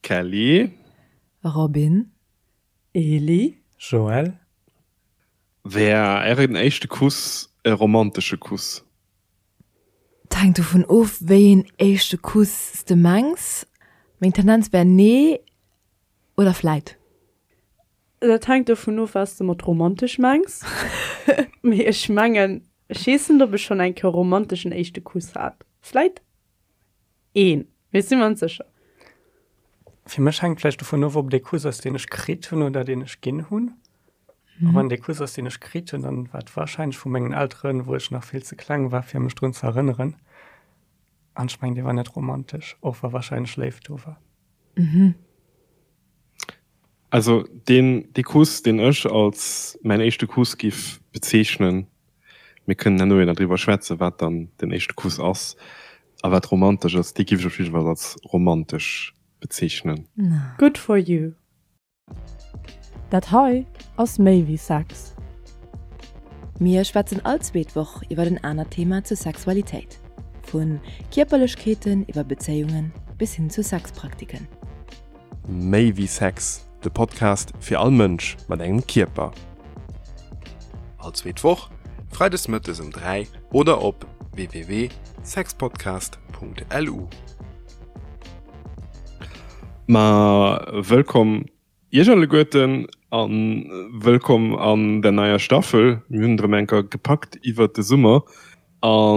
Kelly. Robin. Eli. Joël. Wär ären éischte Kuss e romantesche Kuss? Et hänkt dovun of, wéi een éischte Kuss s de mengs. Meng Tendenz wär nee oder vläit. Dat hänkt dovun of, wat s de mat romantesch mengs. Mee ech mengen, ech weess net, ob ech schonn eng Kéier e romanteschen éischte Kuss hat. Vläit een, mee ech si mer net sécher. Fir mech hänkt vläicht dovun of, ob et ee Kuss ass, deen ech kritt hunn oder deen ech ginn hunn. A wann et ee Kuss ass, deen ech kritt hunn, dann war et warscheinlech vu mengen Elteren, wou ech nach vill ze kleng war, fir mech drun ze erënneren. An ech mengen, dee war net romantesch, och wa warscheinlech Léift do war. Also deen, dee Kuss, deen ech als mäin éischte Kuss giff bezeechnen, mir kënnen herno jo nach driwwer schwätzen, wat dann den éischte Kuss ass a wat romantesch ass, dee giff ech op jidde Fall als romantesch bezeechnen. Good for you. Dat hei ass méi wéi Sex. Mir schwätzen all zweet Woch iwwer en anert Thema zur Sexualitéit, vu Kierperlechkeeten iwwer Bezéiungen bis hin zu Sexpraktiken. Méi wéi Sex, de Podcast fir all Mënsch mat engem Kierper. All zweet Woch, freides mëttes um 3 oder op www.sexpodcast.lu. Ma wëllkomm Iech alleguerten a wëllkomm an der neier Staffel. Mir hunn et erëm eng Kéier gepackt iwwert de Summer a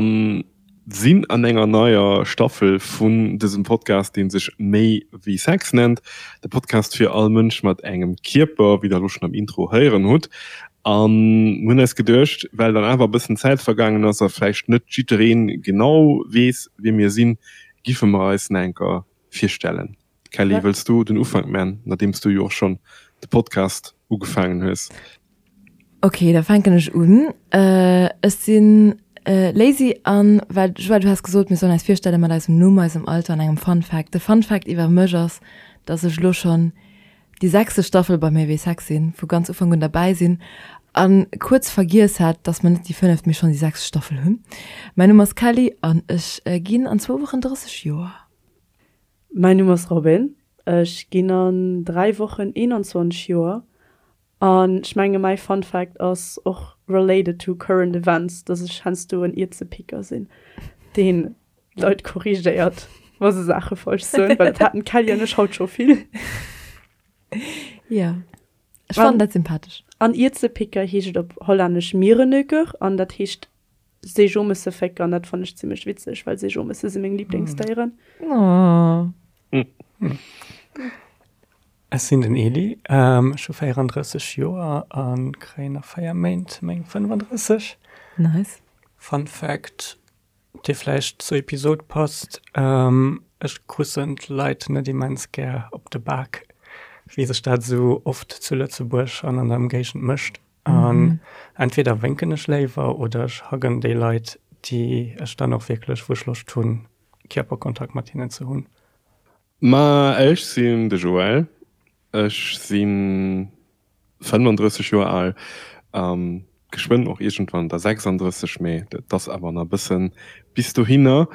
sinn an enger neier Staffel vun dësem Podcast, dee sech Méi wéi Sex nennt. De Podcast fir all Mënsch mat engem Kierper, wéi der elo schonn am Intro héieren hutt. A mir hunn eis geduecht, well dann awer e bëssen Zäit vergaangen ass a vläicht net jidderee genau weess, wie mir sinn, giffe mer eis nach eng Kéier virstellen. Kelly, wëlls du den Ufank man, nodeems du jo och schonn de Podcast ugefaangen hues? Ok, da fänken ech un. Ech sinn Lazy an well, Joël, du has gesot, mir sollen eis virstelle mat eisem Numm, eisem Alter an engem Fun Fact. De Fun Fact iwwer mech ass, dass ech elo schonn déi sechste Staffel bei Méi wéi Sex sinn, vu ganz Ufank un derbäi sinn a kuerz vergiess hat, dass mer net déi fënneft, mee schonn déi sechst Staffel hunn. Mäin Numm ass Kelly an ech ginn an zwou Wochen 30 Joer. Mäin Numm ass Robin, ech ginn an 3 Wochen 21 Joer an ech menge mäi Fun Fact ass och related to current events, dass ech heiansdo en Ierzepicker sinn, deen Leit korrigéiert, wa se Saache falsch soen, well dat haten d'Kelly an ech haut scho vill. Jo, ech fannen dat sympathesch. An Ierzepicker heescht et op Hollännesch Mierenneuker an dat heescht Seejomesse fécker an dat fannen ech zimmlech witzeg, well Seejomesse si meng Lieblingsdéieren. Oh. Ech sinn den Eli, ech hu 34 Joer a kréien a 4 Méint meng 35. Nice. Fun Fact, dee vläicht zur Episod passt, Ech kussen d'Leit net immens gär op de Bak, wéi sech dat esou oft zu Lëtzebuerg an an der Ëmgéigend mécht. An entweder wénken ech léiwer oder ech huggen déi Leit, déi ech dann och wierklech, wou ech Loscht hunn, Kierperkontakt mat hinnen ze hunn. Ma ech sinn de Joël, ech si 35 Joer al, geschwënn och iergendwann der 36, mee et ass awer nach e bëssen bis dohinner.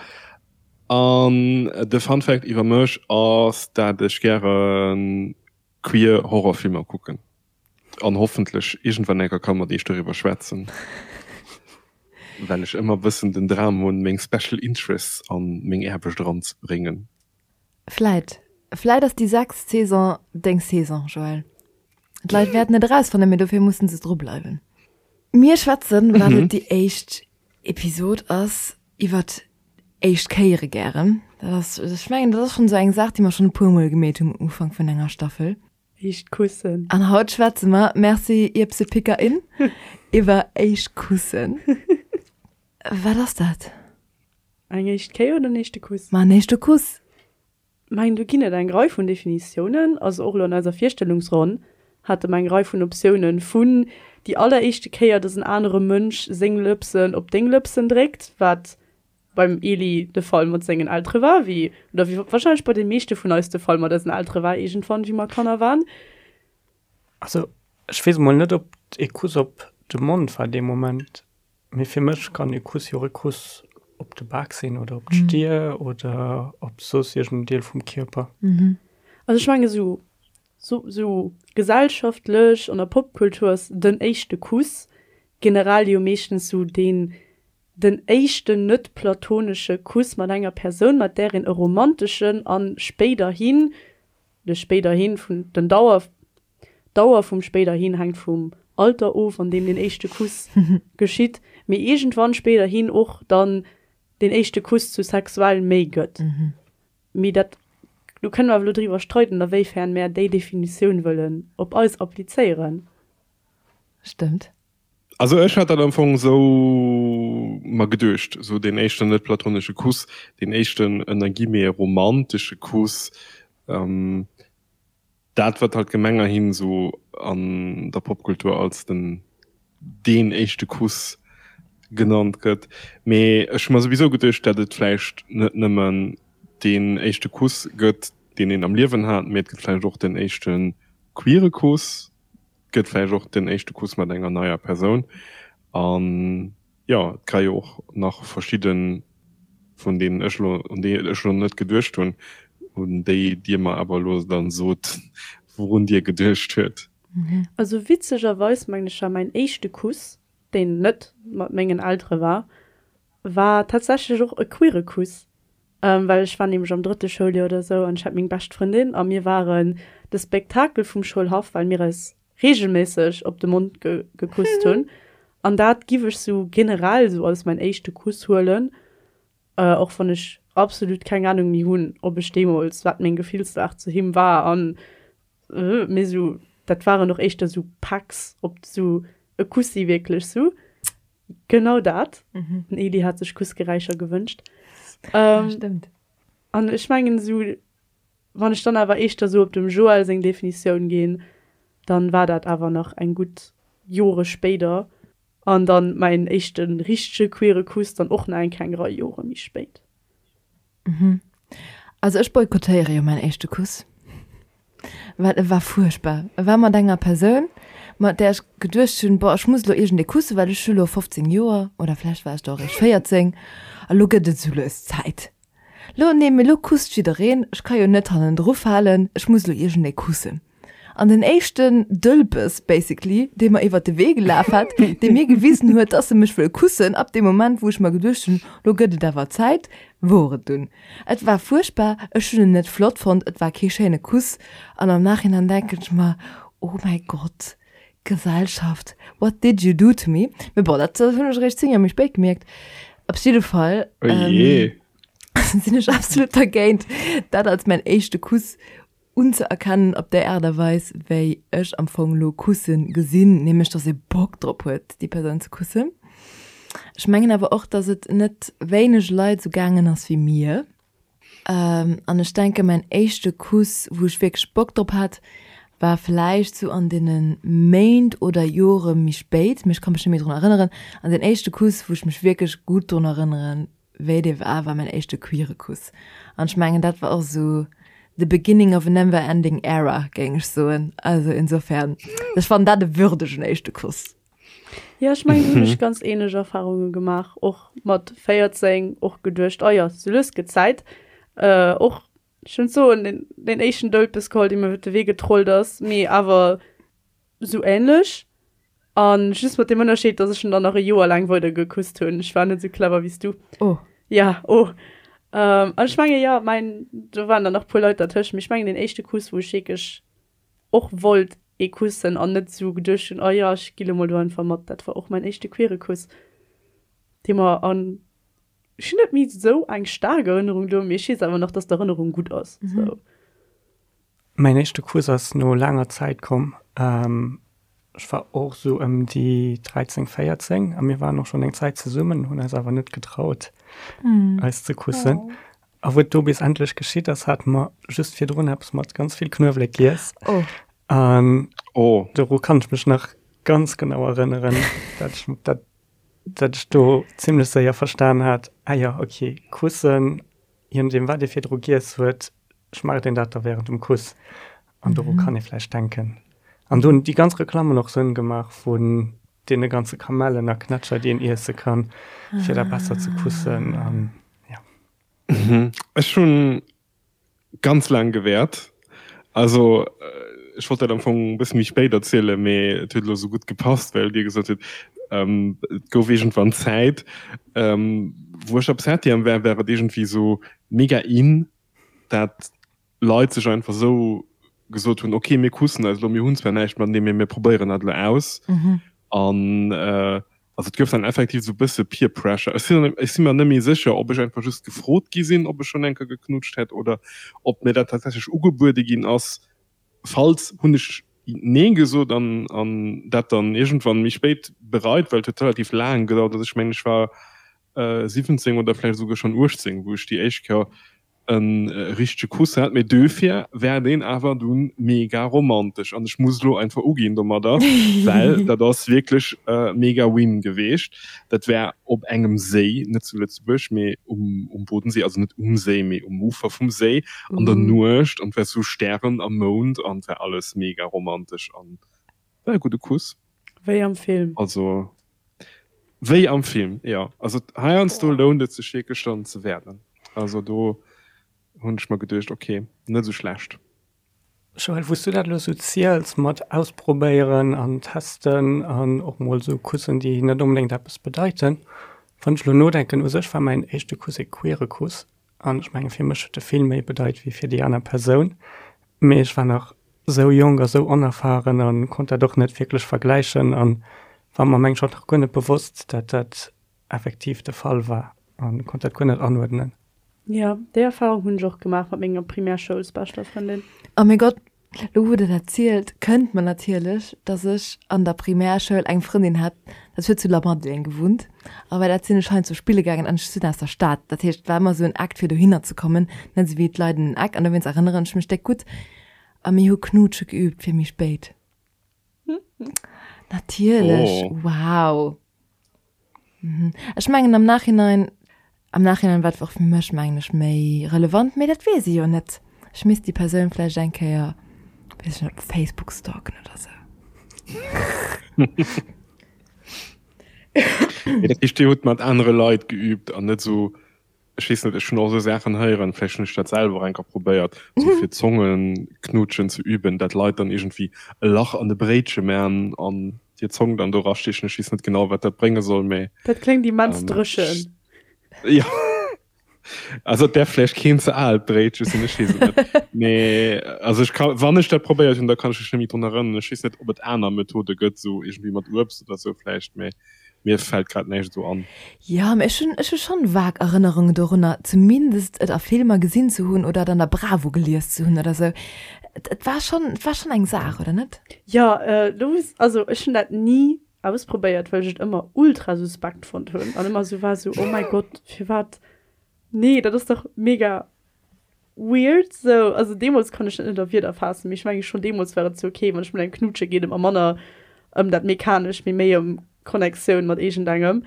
An de Fun Fact iwwer mech ass, dat ech gäre queer Horrorfilmer kucken. An hoffentlech iergendwann eng Kéier ka mat iech doriwwer schwätzen, well ech ëmmer bëssen den Dram hunn, meng Special Interests an meng Aarbecht eranzebréngen. Vläit, vläit ass déi sechst Saison deng Saison, Joël. D'Leit wäerten et erausfannen, mee dofir mussen se drubleiwen. Mir schwätzen, well et déi éischt Episod ass, iwwert éischt Kéiere gären. Dat ass, ech mengen, dat ass schonn esou eng Saach, déi mer schonn e puermol gemeet hunn um Ufank vun enger Staffel. Éischt Kussen. An haut schwätze mer, merci Ierpsepickerin, iwwer éischt Kussen. Wat ass dat? Eng éischt Kéier oder en éischte Kuss? Ma en éischte Kuss. Mengen, do ginn et eng Rei vun Definitiounen. Also och elo an eiser Virstellungsronn hate mer eng Rei vun Optiounen, vun déi alleréischte Kéier, dass en anere Mënsch seng Lëpsen op deng Lëpsen dréckt, wat beim Eli de Fall mat sengen Eltere war, wéi, oder wéi wahrscheinlech bei de meeschte vun eis de Fall mat eisen Eltere war, iergendwann, wéi mer Kanner waren. Also, ech weess emol net, ob e Kuss op de Mond war dee Moment, mee fir mech kann e Kuss jo och e Kuss op de Bak sinn oder op d'Stier oder op soss iergend en Deel vum Kierper. Also ech mengen esou sou gesellschaftlech an der Popkultur ass den éischte Kuss generell jo meeschtens sou deen den éischten net platonesche Kuss mat enger Persoun mat där een e romanteschen an spéiderhin, de spéiderhin vun den Dauer d'Dauer vum spéiderhin hänkt vum Alter of an deem den éischte Kuss geschitt, mee iergendwann spéiderhin och dann den éischte Kuss zu sexuell méi gëtt. Mee dat, do kënne mer awer elo driwwer streiden, a wéifern mär déi Definitioun wëllen op eis applizéieren. Stëmmt. Also ech hat dat am Fong esou mer geduecht, esou deen éischten net platonesche Kuss, deen éischten ënner Guillemets romantesche Kuss, dat wat halt gemengerhin esou an der Popkultur als den deen éischte Kuss genannt gëtt. Mee ech hu mer souwisou geduecht, dat et vläicht net nëmmen deen éischte Kuss gëtt, deen een am Liewen hat, mee et gëtt vläicht och den éischte queere Kuss, et gëtt vläicht och den éischte Kuss mat enger neier Persoun. An jo, et ka jo och nach verschidde vun deenen ech elo, un déi ech elo net geduecht hunn, un déi Dir mer awer elo dann sot, wourun Dir geduecht huet. Also witzegerweis mengen ech war mäin éischte Kuss, deen net mat mengen Eltere war, war tatsächlech och e queere Kuss, well ech war nämlech am drëtte Schouljoer oder sou an ech hat meng bescht Frëndin a mir waren de Spektakel vum Schoulhaff, well mir eis regelméisseg op de Mond gekusst hunn an dat giff ech sou generell sou als mäin éischte Kuss huelen, och wann ech absolut keng Ahnung méi hunn, ob ech deemools, wat meng Gefillslag zu him war an Mee sou, dat waren och éischter sou Packs, op sou e Kussi wierklech sou. Genau dat. Den Eli hat sech Kussgeräischer gewënscht. Ja, stëmmt. An ech mengen sou, wann ech dann awer éischter sou op dem Joël seng Definitioun ginn, dann war dat awer nach eng gutt Jore spéider. An dann mäin éischte richtege queere Kuss dann och nach eng kleng Rei Jore méi spéit. Mhm. Also ech boykottéiere jo mäin éischte Kuss, well e war fuerchtbar. E war mat enger Persoun, mat där ech geduecht hunn, boah, ech muss elo iergendee kussen, well ech hu lo 15 Joer, oder vläicht war ech do och eréischt 14, a lo gëtt et esou lues Zäit. Lo, nee, mee lo kusst jiddereen, ech ka jo net hannendru falen, ech muss elo iergendee kussen. An den éischten Dëlpes basically, dee mer iwwert de Wee gelaf hat, dee mir gewisen huet, dass e mech wëll kussen, ab deem Moment, wou ech mer geduecht hunn, lo gëtt et awer Zäit, wor et dunn. Et war fuerchtbar, ech hunn en net flott fonnt, et war kee schéine Kuss. An am Nachhinein denken ech mer, oh mäi Gott, Gesellschaft, what did you do to me? Mee bon, dat hunn ech eréischt 10 Joer méi spéit gemierkt. Op jidde Fall sinn ech absolut dergéint, dat als mäin éischte Kuss unzeerkennen op déi Aart a Weis wéi ech am Fong lo kussen gesinn, nämlech dass ee Bock drop huet déi Persoun ze kussen. Ech mengen awer och, dass et net wéineg Leit sou gaangen ass wéi mir. An ech denke mäin éischte Kuss wou ech wierklech Bock drop hat, war vläicht sou an deene Méint oder Jore méi spéit, mee ech ka mech net méi drun erënneren. An deen éischte Kuss wou ech mech wierklech gutt drun erënneren, Wéi dee war, war mäin éischte queere Kuss. An ech mengen, dat war och esou the beginning of a never ending era, géing ech soen. Also insofern, ech fannen dat e würdegen éischte Kuss. Jo, ech mengen, do hunn ech ganz ähnlech Erfahrunge gemaach, och mat 14, och geduecht, oh jo, sou lues gëtt Zäit. Och, ech wëll net soen, deen, deen éischten Dëlpes geholl, dee mir iwwer de Wee getrollt ass, mee awer Sou ähnlech. An just mat dem Ënnerscheed, dass ech en dann nach e Joer laang weider gekusst hunn. Ech war net sou clever wéi s du. Oh. Ja, oh. Ähm, an ech menge jo, mäin, do waren dann nach puer Leit dertëscht, mee ech mengen deen éischte Kuss, wou ech wierklech och wollt ee kussen an net sou geduecht hunn, oh jo, ech gi lo mol do einfach mat, dat war och mäin éischte queere Kuss, dee mer an, ech hunn net méi sou eng staark Erënnerung do, mee ech weess awer nach, dass d'Erënnerung gutt ass, sou. Mäin éischte Kuss ass no laanger Zäit komm. Ech war och esou ëm déi 13, 14 a mir waren och schonn eng Zäit zesummen, hunn eis awer net getraut, eis ze kussen. A wou et do bis endlech geschitt ass, hate mer just virdrun eppes mat ganz vill Knuewelek giess. An doru kann ech mech nach ganz genau erënneren, dat ech dat dat ech do zimlech séier verstan hat, ah jo, okay, kussen, je nodeem wat ee virdru giess huet, schmaacht een dat da während dem Kuss an doru kann ee vläicht denken. An do hunn déi ganz Reklammen och Sënn gemaach vun deene ganze Kamellen a Knätscher, déi een iesse kann, fir da besser ze kussen an jo. Ech hunn ganz laang gewäert. Also ech wollt dat am Fong e bësse méi spéit erzielen, mee et huet elo esou gutt gepasst, well Dir gesot hutt, et gouf iergendwann Zäit, wou ech op Septième war, war et iergendwéi esou mega in, dat Leit sech einfach esou gesot hunn, ok, mir kussen eis elo, mir hunn zwar näischt matenee, mee mir probéieren dat elo aus. An also et gouf dann effektiv esou e bësse Peer Pressure. Ech sinn, ech si mer net méi sécher, ob ech einfach just gefrot gi sinn, ob ech schonn eng Kéier geknutscht hätt oder ob mir dat tatsächlech ugebuede ginn ass. Falls, hunn ech Nee gesot an, an dat dann iergendwann méi spéit bereit, well et huet relativ laang gedauert. Also ech mengen, ech war 17 oder vläicht esouguer schonn 18, wou ech déi éischt Kéier en richtege Kuss hat, mee duerfir war deen awer dunn mega romantesch an ech muss elo einfach uginn domadder, well dat ass wierklech mega win geweecht. Dat war op engem Séi, net zu Lëtzebuerg, mee um Bodensee, also net um Séi, mee um Ufer vum Séi an der Nuecht an et war sou Stären a Mound an et war alles mega romantesch an war e gudde Kuss. Wéi am Film. Also wéi am Film, jo. Also heiansdo lount et sech wierklech dann ze wäerten. Also do hunn ech mer geduecht, ok, net esou schlecht. Joël, wou s du dat elo esou ziels mat ausprobéieren an testen an och mol esou Kussen, déi net onbedéngt eppes bedeiten, wann ech elo nodenken, u sech war mäin éischte Kuss e queere Kuss an ech menge fir mech huet e vill méi bedeit wéi fir déi aner Persoun. Mee ech war nach sou jonk a sou onerfahren a konnt dat och net wierklech vergläichen an war mer mengen ech och nach guer net bewosst, dat dat effektiv de Fall war a konnt dat guer net anuerdnen. Jo, déi Erfahrung hunn ech och gemaach mat menger Primärschoulsbeschter Frëndin. Oh mäi Gott, lo wou der dat zielt, kënnt mer natierlech, dass ech an der Primärschoul eng Frëndin hat, dat huet zu Lamadelaine gewunnt, a bei dat sinn ech heiansdo spille gaangen an ech sinn aus der Stad, dat heescht, et war ëmmer esou en Akt fir dohinner ze kommen, net esou wéi d'Leit en Eck, an dowéinst erënneren ech mech déck gutt. A mir hu Knutsche geüübt fir méi spéit. Natierlech, wow. Ech mengen am Nachhinein, am Nachhinein war et och fir mech mengen ech méi relevant, mee dat weess ee jo net. Ech misst déi Persoun vläicht eng Kéier, weess ech net, op Facebook stalken oder sou. Mee dat heescht, Dir hutt mat anere Leit geüübt an net sou Ech weess net, ech hunn och esou Saachen héieren, vläicht hunn ech dat selwer och eng Kéier probéiert, esou fir Zongenknutschen ze üben, dat Leit dann iergendwéi e Lach an de Bréitche man an hir Zong dann do erastichen. Ech weess net genau, wat dat brénge soll, mee. Dat kléngt immens dréchen. Jo, also et däerf vläicht keen ze aalt Bréitche sinn, ech weess et net. Mee also ech ka, wann ech dat probéiert hunn, da kann ech mech net méi drun erënneren. Ech weess net, ob et aner Methode gëtt, esou iergendwéi mat Uebst oder esou vläicht, mee. Mir fällt grad näischt esou an. Jo, mee ech hunn, ech hu schonn vag Erënnerungen dorunner, zumindest et a Filmer gesinn ze hunn oder et an der Bravo gelies ze hunn oder sou. Et, et war schonn, et war schonn eng Saach, oder net? Jo, do muss, also ech hunn dat ni ausprobéiert, well ech et ëmmer ultra suspekt fonnt hunn an ëmmer sou war sou, oh mäi Gott, firwat, nee, dat ass dach mega Weird sou, also deemols konnt ech dat net a Wierder faassen, mee ech mengen schon deemols war et sou ok, wann ech mat engem knutsche geet et mer manner ëm dat mechanescht, mee méi ëm Connectioun mat iergendengem.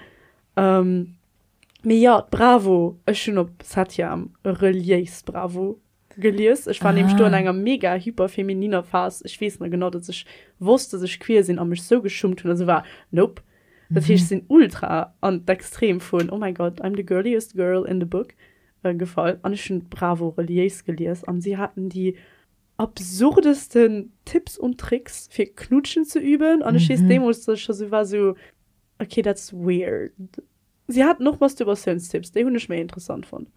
Mee jo, d'Bravo, ech hunn op Septième reliéis Bravo gelies. Ech war nämlech do an enger mega hyper femininer Phas. Ech weess nach genau, datt ech wosst, datt ech queer sinn a mech sou geschummt hunn a sou war, nope. Dat heescht, ech sinn ultra an d'Extrem vun oh my god, I'm the girliest girl in the book gefall an ech hunn d'Bravo reliéis gelies an si haten déi absurdesten Tipps und Tricks fir knutschen ze üben an ech weess deemools dass ech scho sou war sou ok that's weird. Si haten och Masturbatiounstipps, déi hunn ech méi interessant fonnt.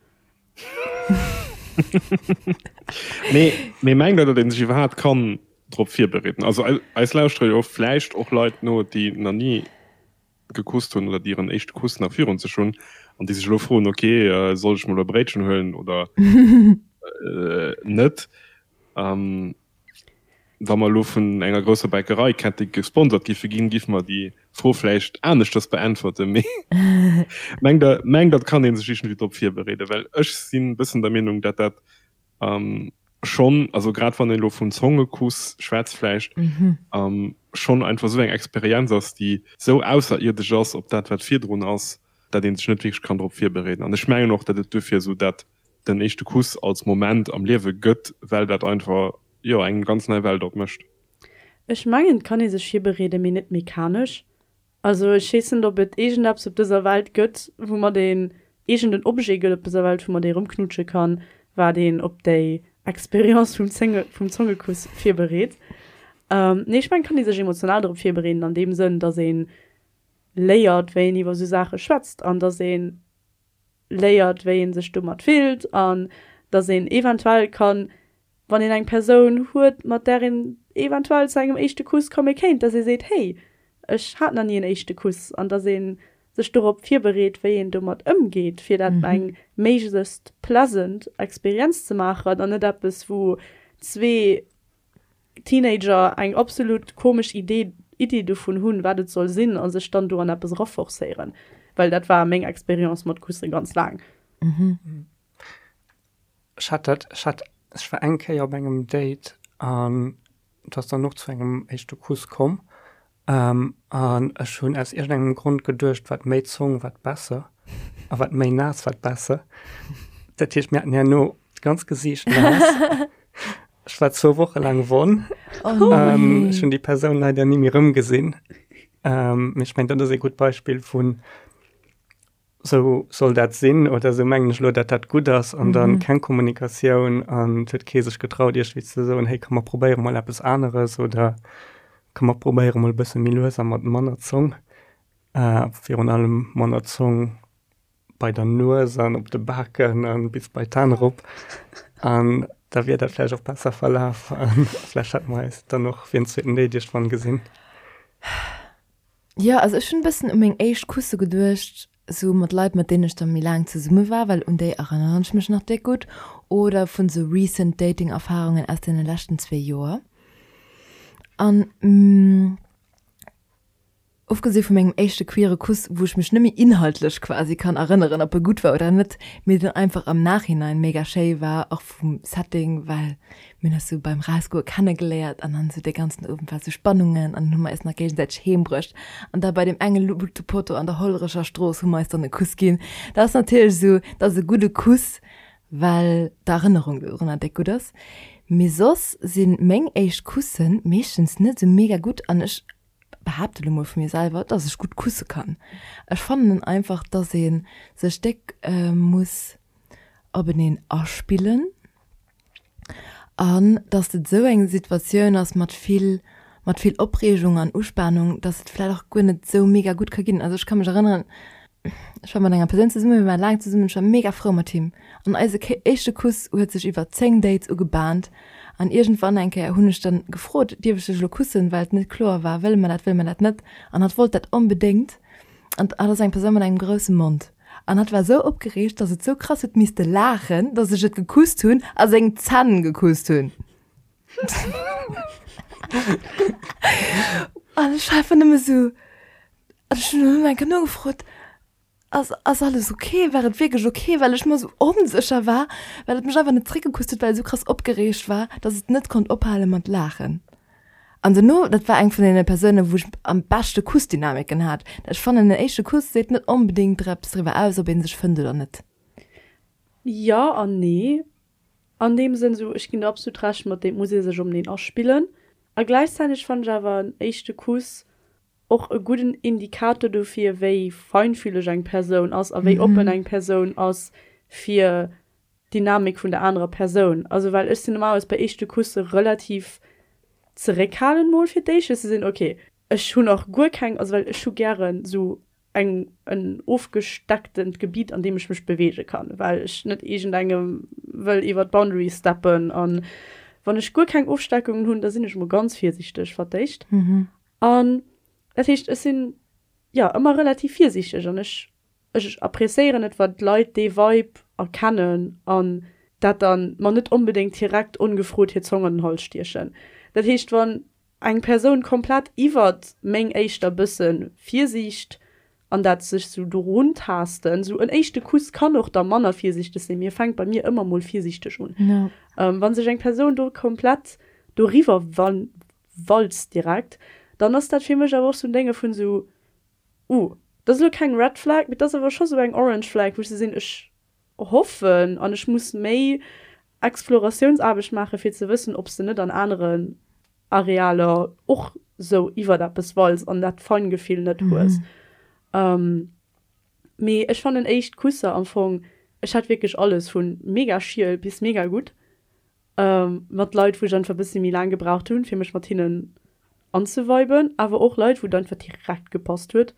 Mee mee mengt der datt een sech iwwerhaapt kann drop virbereeden? Also eis lauschtere jo vläicht och Leit no déi nach ni gekusst hunn oder déi hiren éischte Kuss nach virun sech hunn an déi sech elo froen, ok, soll ech mol e Bréitchen huelen oder net? Wa mer elo vun enger grousser Bäckereikette gesponsert giffe ginn, giffe mer déi Fro vläicht aneschters beäntwerten. Mee mengt Der, mengt Der, et kann ee sech iergendwéi drop virbereeden? Well ech sinn e bëssen der Meenung, datt dat schonn, also grad wann een elo vum Zongekuss schwätzt vläicht, schonn einfach esou eng Experienz ass, déi esou ausserierdesch ass op dat wat virdrun ass, dat ee sech net wierklech kann drop virbereeden. An ech mengen och, datt et duerfir esou dat den éischte Kuss als Moment am Liewe gëtt, well dat einfach, jo, eng ganz nei Welt opmécht. Ech mengen, et kann ee sech virbereeden, mee net mechanesch. Also ech weess net, ob et iergendeppes op dëser Welt gëtt, woumat een, iergend en Objet gëtt op dëser Welt, woumat ee rëmknutsche kann, wat een op déi. Experience vum Zénge, vum Zongekuss virbereet. Nee, ech mengen, et kann ee sech emotional drop virbereeden an deem Sënn, dass ee léiert, wéi een iwwer esou Saache schwätzt an dass ee léiert, wéi ee sech domat fillt an dass een eventuell kann, wann een eng Persoun huet, mat där een eventuell zu engem éischte Kuss komme kéint, dass ee seet, Hey, ech hat nach ni en éischte Kuss an dass ee sech dorop virbereet, wéi een domat ëmgeet, fir dat eng méiglechst pleasant Experienz ze maachen an net eppes, wou zwee Teenager eng absolut komesch Idee Iddi dovun hunn, wat et soll sinn a sech dann do an eppes eraforcéieren. Well dat war meng Experience mat Kusse ganz laang. Ech hat dat, ech hat, ech war eng Kéier op engem Date an et ass dann och zu engem éischte Kuss komm An ech hunn aus iergendengem Grond geduecht, wat méi Zong, wat besser a wat méi naass, wat besser. Dat heescht, mir haten herno d'ganz Gesiicht naass. Ech war zwou Woche laang wonn. Oh nee. Ech hunn déi Persoun leider ni méi erëmgesinn. Mee ech mengen, dat ass ee gutt Beispill vun Sou soll dat sinn oder sou mengen ech elo, datt dat gutt ass an dann keng Kommunikatioun an et huet kee sech getraut iergendwéi ze soen, hey komm mer probéiere mol eppes aneres oder komm mer probéiere mol e bësse méi lues a mat manner Zong, virun allem manner Zong bei der Nues an op de Baken a bis bei d'An erop an da wier dat vläicht och besser verlaf a vläicht hätte mer eis dann och fir en zweeten Date iergendwann gesinn. Jo, also ech hunn e bëssen u meng éischt Kusse geduecht, sou mat Leit, mat deenen ech da méi laang zesumme war, well un déi erënneren ech mech nach déck gutt, oder vun sou recent Dating-Erfarungen aus deene leschten zwee Joer. An ofgesi vu mengem éischte queere Kuss, wou ech mech net méi inhaltlech quasi kann erënneren, ob e gutt war oder net, mee deen einfach am Nachhinein mega schéi war, och vum Setting, well Mir hunn eis sou beim Rausgoe kennegeléiert an dann sou dee ganzen Owend war sou Spannungen an dann hu mer eis nach géigesäiteg heem bruecht an da bei deem enge Luuchtepotto an der Hollerecher Strooss hu mer eis dann e Kuss ginn. Dat ass natierlech sou, dat ass e gudde Kuss, well d'Erënnerung dorunner déck gutt ass. Mee soss si meng éischt Kusse meeschtens net sou mega gutt an ech behaapte lo mol vu mir selwer, dass ech gutt kusse kann. Ech fannen einfach, dass ee sech déck muss openeen aspillen. An datt et esou eng Situatioun ass mat vill, mat vill Opreegung an Uspanung, datt et vläicht och guer net esou mega gutt ka ginn. Also ech ka mech erënneren, ech war mat enger Persoun zesummen, mir waren laang zesummen, ech war mega frou mat him. An eise éischte Kuss huet sech iwwer 10 Dates ugebahnt. An iergendwann eng Kéier hunn ech dann gefrot, dierf ech dech elo kussen, well et net kloer war, wëlle mer dat, wëlle mer dat net. An hatt wollt dat onbedéngt. An hatt ass eng Persoun mat engem grousse Mond. An hatt war sou opgereegt, dass et sou krass huet misste laachen, dass ech et gekusst hunn a seng Zänn gekusst hunn. An ech war einfach nëmme sou, an ech hunn dunn eng Kéier nogefrot, Ass, ass alles ok? War et wierklech ok? Well ech mer sou onsécher war, well et mech einfach net zréckgekusst huet, well et sou krass opgereegt war, dass et net konnt ophale mat laachen. An dono, dat war eng vun deene Persounen, wou ech am beschte Kussdynamiken hat. Ech fannen, en éischte Kuss seet net onbedéngt eppes driwwer aus, ob ee sech fënnt oder net. Jo an nee. An deem Sënn, esou, ech ginn der absolut Recht mat deem, et muss ee sech openeen aspillen. A gläichzäiteg fannen ech awer en éischte Kuss och e gudden Indikator dofir, wéi feinfühleg eng Persoun ass a wéi oppen eng Persoun ass fir d'Dynamik vun der anerer Persoun. Also well ech sinn normalerweis bei éischte Kusse relativ zeréckhalend mol fir d'éischt, fir ze sinn, ok, ech hunn och guer keng, also well ech hu gären esou eng en ofgestecktent Gebiet an deem ech mech beweege kann, well ech net iergendengem wëll iwwer d'Boundary steppen. An wann ech guer keng Ofsteckungen hunn, da sinn ech mol ganz virsiichteg fir d'éischt. An dat heescht, ech sinn jo ëmmer relativ virsiichteg an ech Ech appreciéieren et wann d'Leit dee Vibe erkennen an dat dann mer net onbedéngt direkt ongefrot hir Zong an den Hals stiechen. Dat heescht wann eng Persoun komplett iwwert meng éischter bësse Virsiicht an dat sech sou dorun taasten, sou en éischte Kuss kann och da manner virsiichteg sinn, mee e fänkt bei mir ëmmer mol virsiichteg un, wann sech eng Persoun do komplett doriwwer walzt direkt, dann ass dat fir mech awer och sou en Dénge vun sou, Uh, dat ass elo keng Red Flag, mee dat ass awer scho sou eng Orange Flag, wou ech sou sinn, ech hoffen an ech muss méi Exploratiounsaarbecht maachen, fir ze wëssen, ob s de net an aneren Arealer och sou iwwert eppes walz an dat Feingefill net hues. Mee ech fannen éischt Kusser am Fong, ech hat wierklech alles, vu mega schiel bis mega gutt. Mat Leit, wou ech einfach e bëssi méi laang gebraucht hunn, fir mech mat hinnen anzeviben, awer och Leit, wou et einfach direkt gepasst huet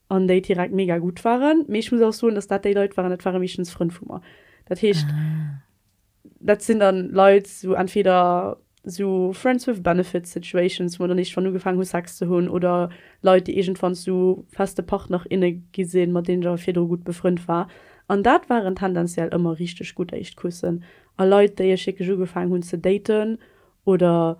an déi direkt mega gutt waren. Mee ech muss och soen, dass dat déi Leit waren, dat ware meeschtens Frënn vu mer. Dat heescht, dat sinn dann Leit, sou entweder sou Friends with Benefits Situations, wou mer dann iergendwann ugefaangen hu Sex ze hunn, oder Leit, déi iergendwann zu feste Partner, inne gi sinn, mat deenen ech awer virdru gutt befrënnt war. An dat waren tendenziell ëmmer richteg gutt éischt Kussen. A Leit, déi ech wierklech ugefaangen hunn ze daten oder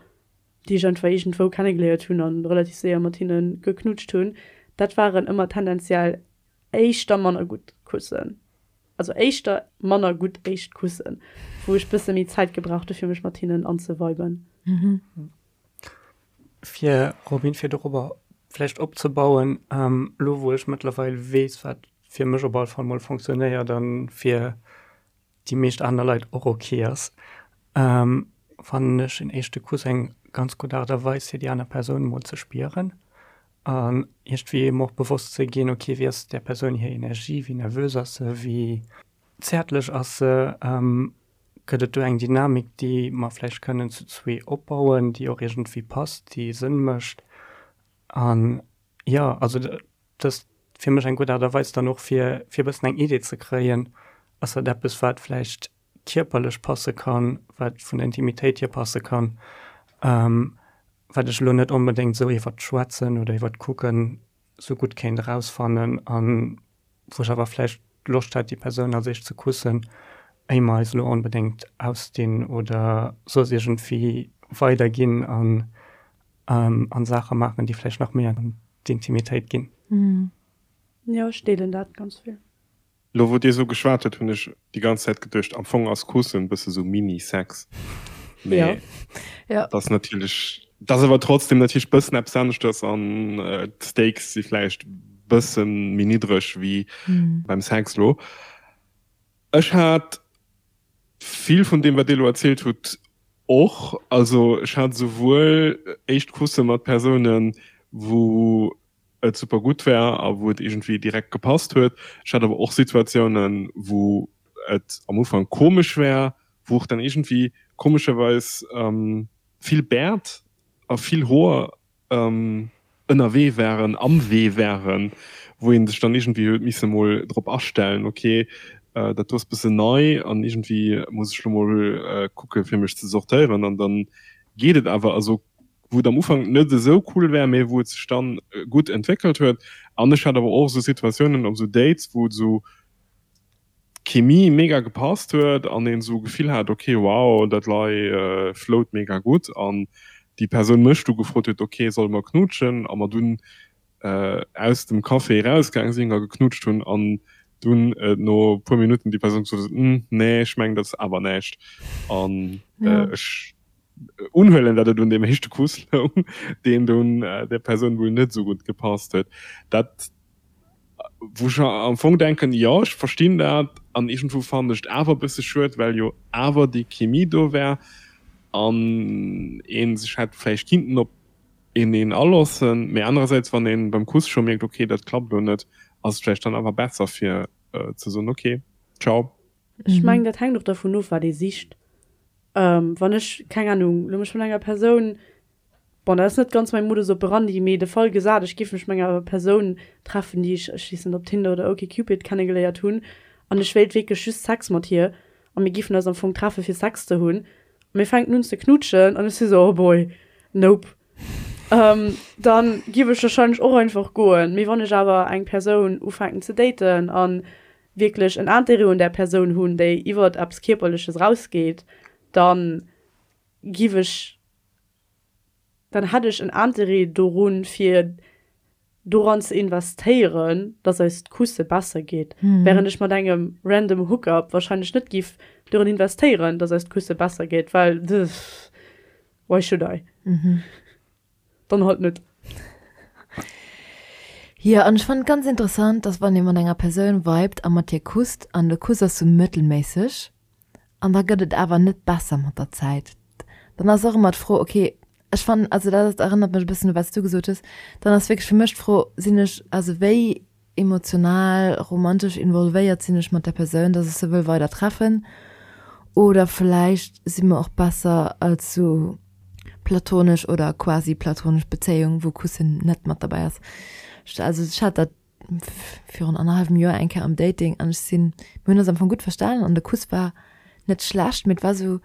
déi ech einfach iergendwou kennegeléiert hunn a relativ séier mat hinne geknutscht hunn, dat waren ëmmer tendenziell éischter manner gutt Kussen. Also éischter manner gutt éischt Kussen, wou ech bësse méi Zäit gebraucht hu fir mech mat hinnen anzeviben. Fir, Robin, fir dorobber vläicht opzebauen, elo wou ech mëttlerweil weess, wat fir mech op alle Fall mol fonctionnéiert a fir déi meescht aner Leit och ok ass, fannen ech en éischte Kuss eng ganz gutt Aart a Weis fir déi aner Persoun mol ze spieren an iergendwéi em och bewosst ze ginn, ok wéi ass där Persoun hir Energie, wéi nervös ass se, wéi zäertlech ass se, gëtt et do eng Dynamik déi mer vläicht kënnen zu zwee opbauen, déi och iergendwéi passt, déi Sënn mécht an jo also dëst fir mech eng gutt Aart a Weis dann och fir fir e bëssen eng Idee ze kréien, ass dat eppes wat vläicht kierperlech passe kann, wat vun der Intimitéit hier passe kann, wat ech elo net onbedéngt esou iwwert d'Schwätzen oder iwwert d'Kucken esou gutt kéint erausfannen an wou ech awer vläicht Loscht hätt déi Persoun als éischt ze kussen, éier mer eis elo onbedéngt ausdinn oder soss iergendwéi weiderginn an an Saache maachen, déi vläicht nach méi an d'Intimitéit ginn. Jo, ech deelen dat ganz vill. Lo wou dir sou geschwat hutt, hunn ech déi ganz Zäit geduecht, am Fong ass Kussen bësse sou Mini-Sex. Mee dat ass natierlech, dat ass awer trotzdem natierlech bëssen eppes aneschters an d'Stakes si vläicht bësse méi niddreg wéi beim Sex lo. Ech hat vill vun deem wat dir lo erzielt hutt och. Also ech hat souwuel éischt Kusse mat Persounen, wou et super gutt war a wou et iergendwéi direkt gepasst huet. Ech hat awer och Situatiounen, wou et am Ufank komesch war, wou och dann iergendwéi komescherweis vill Bäert a vill Hoer ënnerwee waren, am Wee waren, wou ee sech dann iergendwéi huet misse mol drop astellen, ok, dat do ass bëssen nei an iergendwéi muss ech lo mol kucke fir mech ze sortéieren an dann geet et awer. Also wou et am Ufank net esou cool war, mee wou et sech dann gutt entwéckelt huet. An ech hat awer och esou Situatiounen op esou Dates, wou et esou d'Chemie mega gepasst huet an een esou Gefill hat, ok wow, dat lei flowt mega gutt an déi Persoun mech du gefrot huet, ok solle mer knuutschen a mer dunn aus dem Café erausgaang sinn a geknutscht hunn an dunn no e puer Minutten déi Persoun gesot huet, Hm, nee, ech mengen dat ass awer näischt. An ech unhuelen, datt et un deem éischte Kuss loung, deen dunn där Persoun wuel net esou gutt gepasst huet. Dat, wou ech am Fong denken, jo, ech verstinn dat an iergendwou fannen ech et awer e bësse schued, well jo awer déi Chemie do war an ee sech hätt vläicht kinnten op een een alossen, mee anerersäits wann een beim Kuss scho mierkt ok dat klappt lo net, ass et vläicht dann awer besser fir ze soen ok ciao. Ech mengen dat hänkt och dervun of wat ee sicht. Wann ech, keng Ahnung, lo mech mat enger Persoun, bon dat ass net ganz mäi Modus operandi, mee de Fall gesat ech géif mech mat enger Persoun treffen déi ech, ech weess net op Tinder oder OkCupid kennegeléiert hunn an ech wéilt wierklech just Sex mat hir a mir géifen eis am Fong treffe fir Sex ze hunn a mir fänken un ze knutschen an ech si sou oh boy, nope, dann giff ech wahrscheinlech och einfach goen. Mee wann ech awer eng Persoun ufänken ze daten an wierklech en Intérêt un där Persoun hunn, déi iwwert eppes Kierperleches rausgeet, dann giff ech, dann hätt ech en Intérêt dorun fir doran ze investéieren, dass eist Kusse besser geet, während ech mat engem random Hookup wahrscheinlech net giff doran investéieren, dass eist Kusse besser geet, well why should I? Dann halt net. Jo, an ech fannen et ganz interessant, dass wann ee mat enger Persoun vibet a mat hir kusst an de Kuss ass sou mëttelméisseg an da gëtt et awer net besser mat der Zäit, dann ass och ëmmer d'Fro, okay, Ech fannen, also dat erënnert mech e bëssen u wat s du gesot hues, dann ass wierklech fir mech d'Fro, sinn ech, also wéi emotional, romantesch involvéiert sinn ech mat där Persoun, dass ech se wëll weider treffen? Oder vläicht si mer och besser als sou platonesch oder quasi platonesch Bezéiung, wou Kussen net mat derbäi ass. Also ech hat dat virun annerhallwem Joer eng Kéier am Dating an ech sinn, mir hunn eis am Fong gutt verstanen an de Kuss war net schlecht, mee et war sou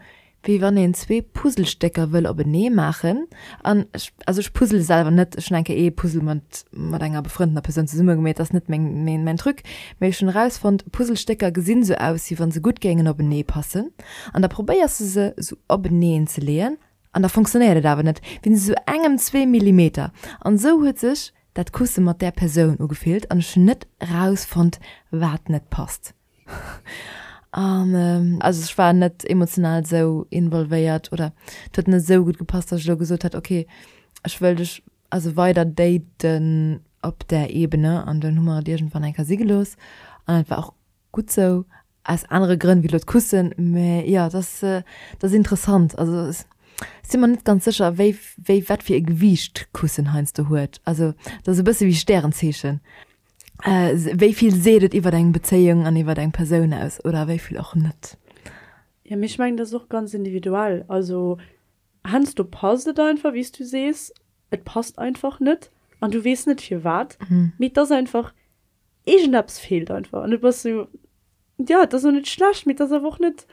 wéi wann een zwee Puzzlestécker wëll openee maachen an ech, also ech puzzle selwer net, ech hunn eng Kéier ee Puzzle mat mat enger befrëndener Persoun zesumme gemeet, dat ass net meng meng mäin Truc, mee ech hunn erausfonnt, Puzzlestécker gesinn sou aus wéi wann se gutt géingen openee passen an da probéiers de se sou openeen ze leeën an da fonctionnéiert et awer net, wéinst esou engem, zwee Millimeter an esou huet sech dat Kusse mat där Persoun ugefillt an ech hunn net erausfonnt wat net passt. An also ech war net emotional esou involvéiert oder et huet net esou gutt gepasst, datt ech elo gesot hätt, okay ech wëll dech also weider daten op där Ebene an dunn hu mer et iergendwann eng Kéier si gelooss an et war och gutt sou, aus anere Grënn wéi elo d'Kussen, mä jo et ass et ass interessant. Also ech si mer net ganz sécher wéi wéi wat fir e Gewiicht Kussen heiansdo huet. Also et ass e bësse wéi Stärenzeechen. Wéi vill seet et iwwer eng Bezéiung an iwwer eng Persoun aus oder wéi vill och net? Jo, mee ech mengen, dat ass och ganz individuell. Also heiansdo passt et einfach, wéi s du sees, et passt einfach net an du weess net firwat, mee et ass einfach, iergendeppes feelt einfach an du bass sou, jo, et ass och net schlecht, mee et ass awer och net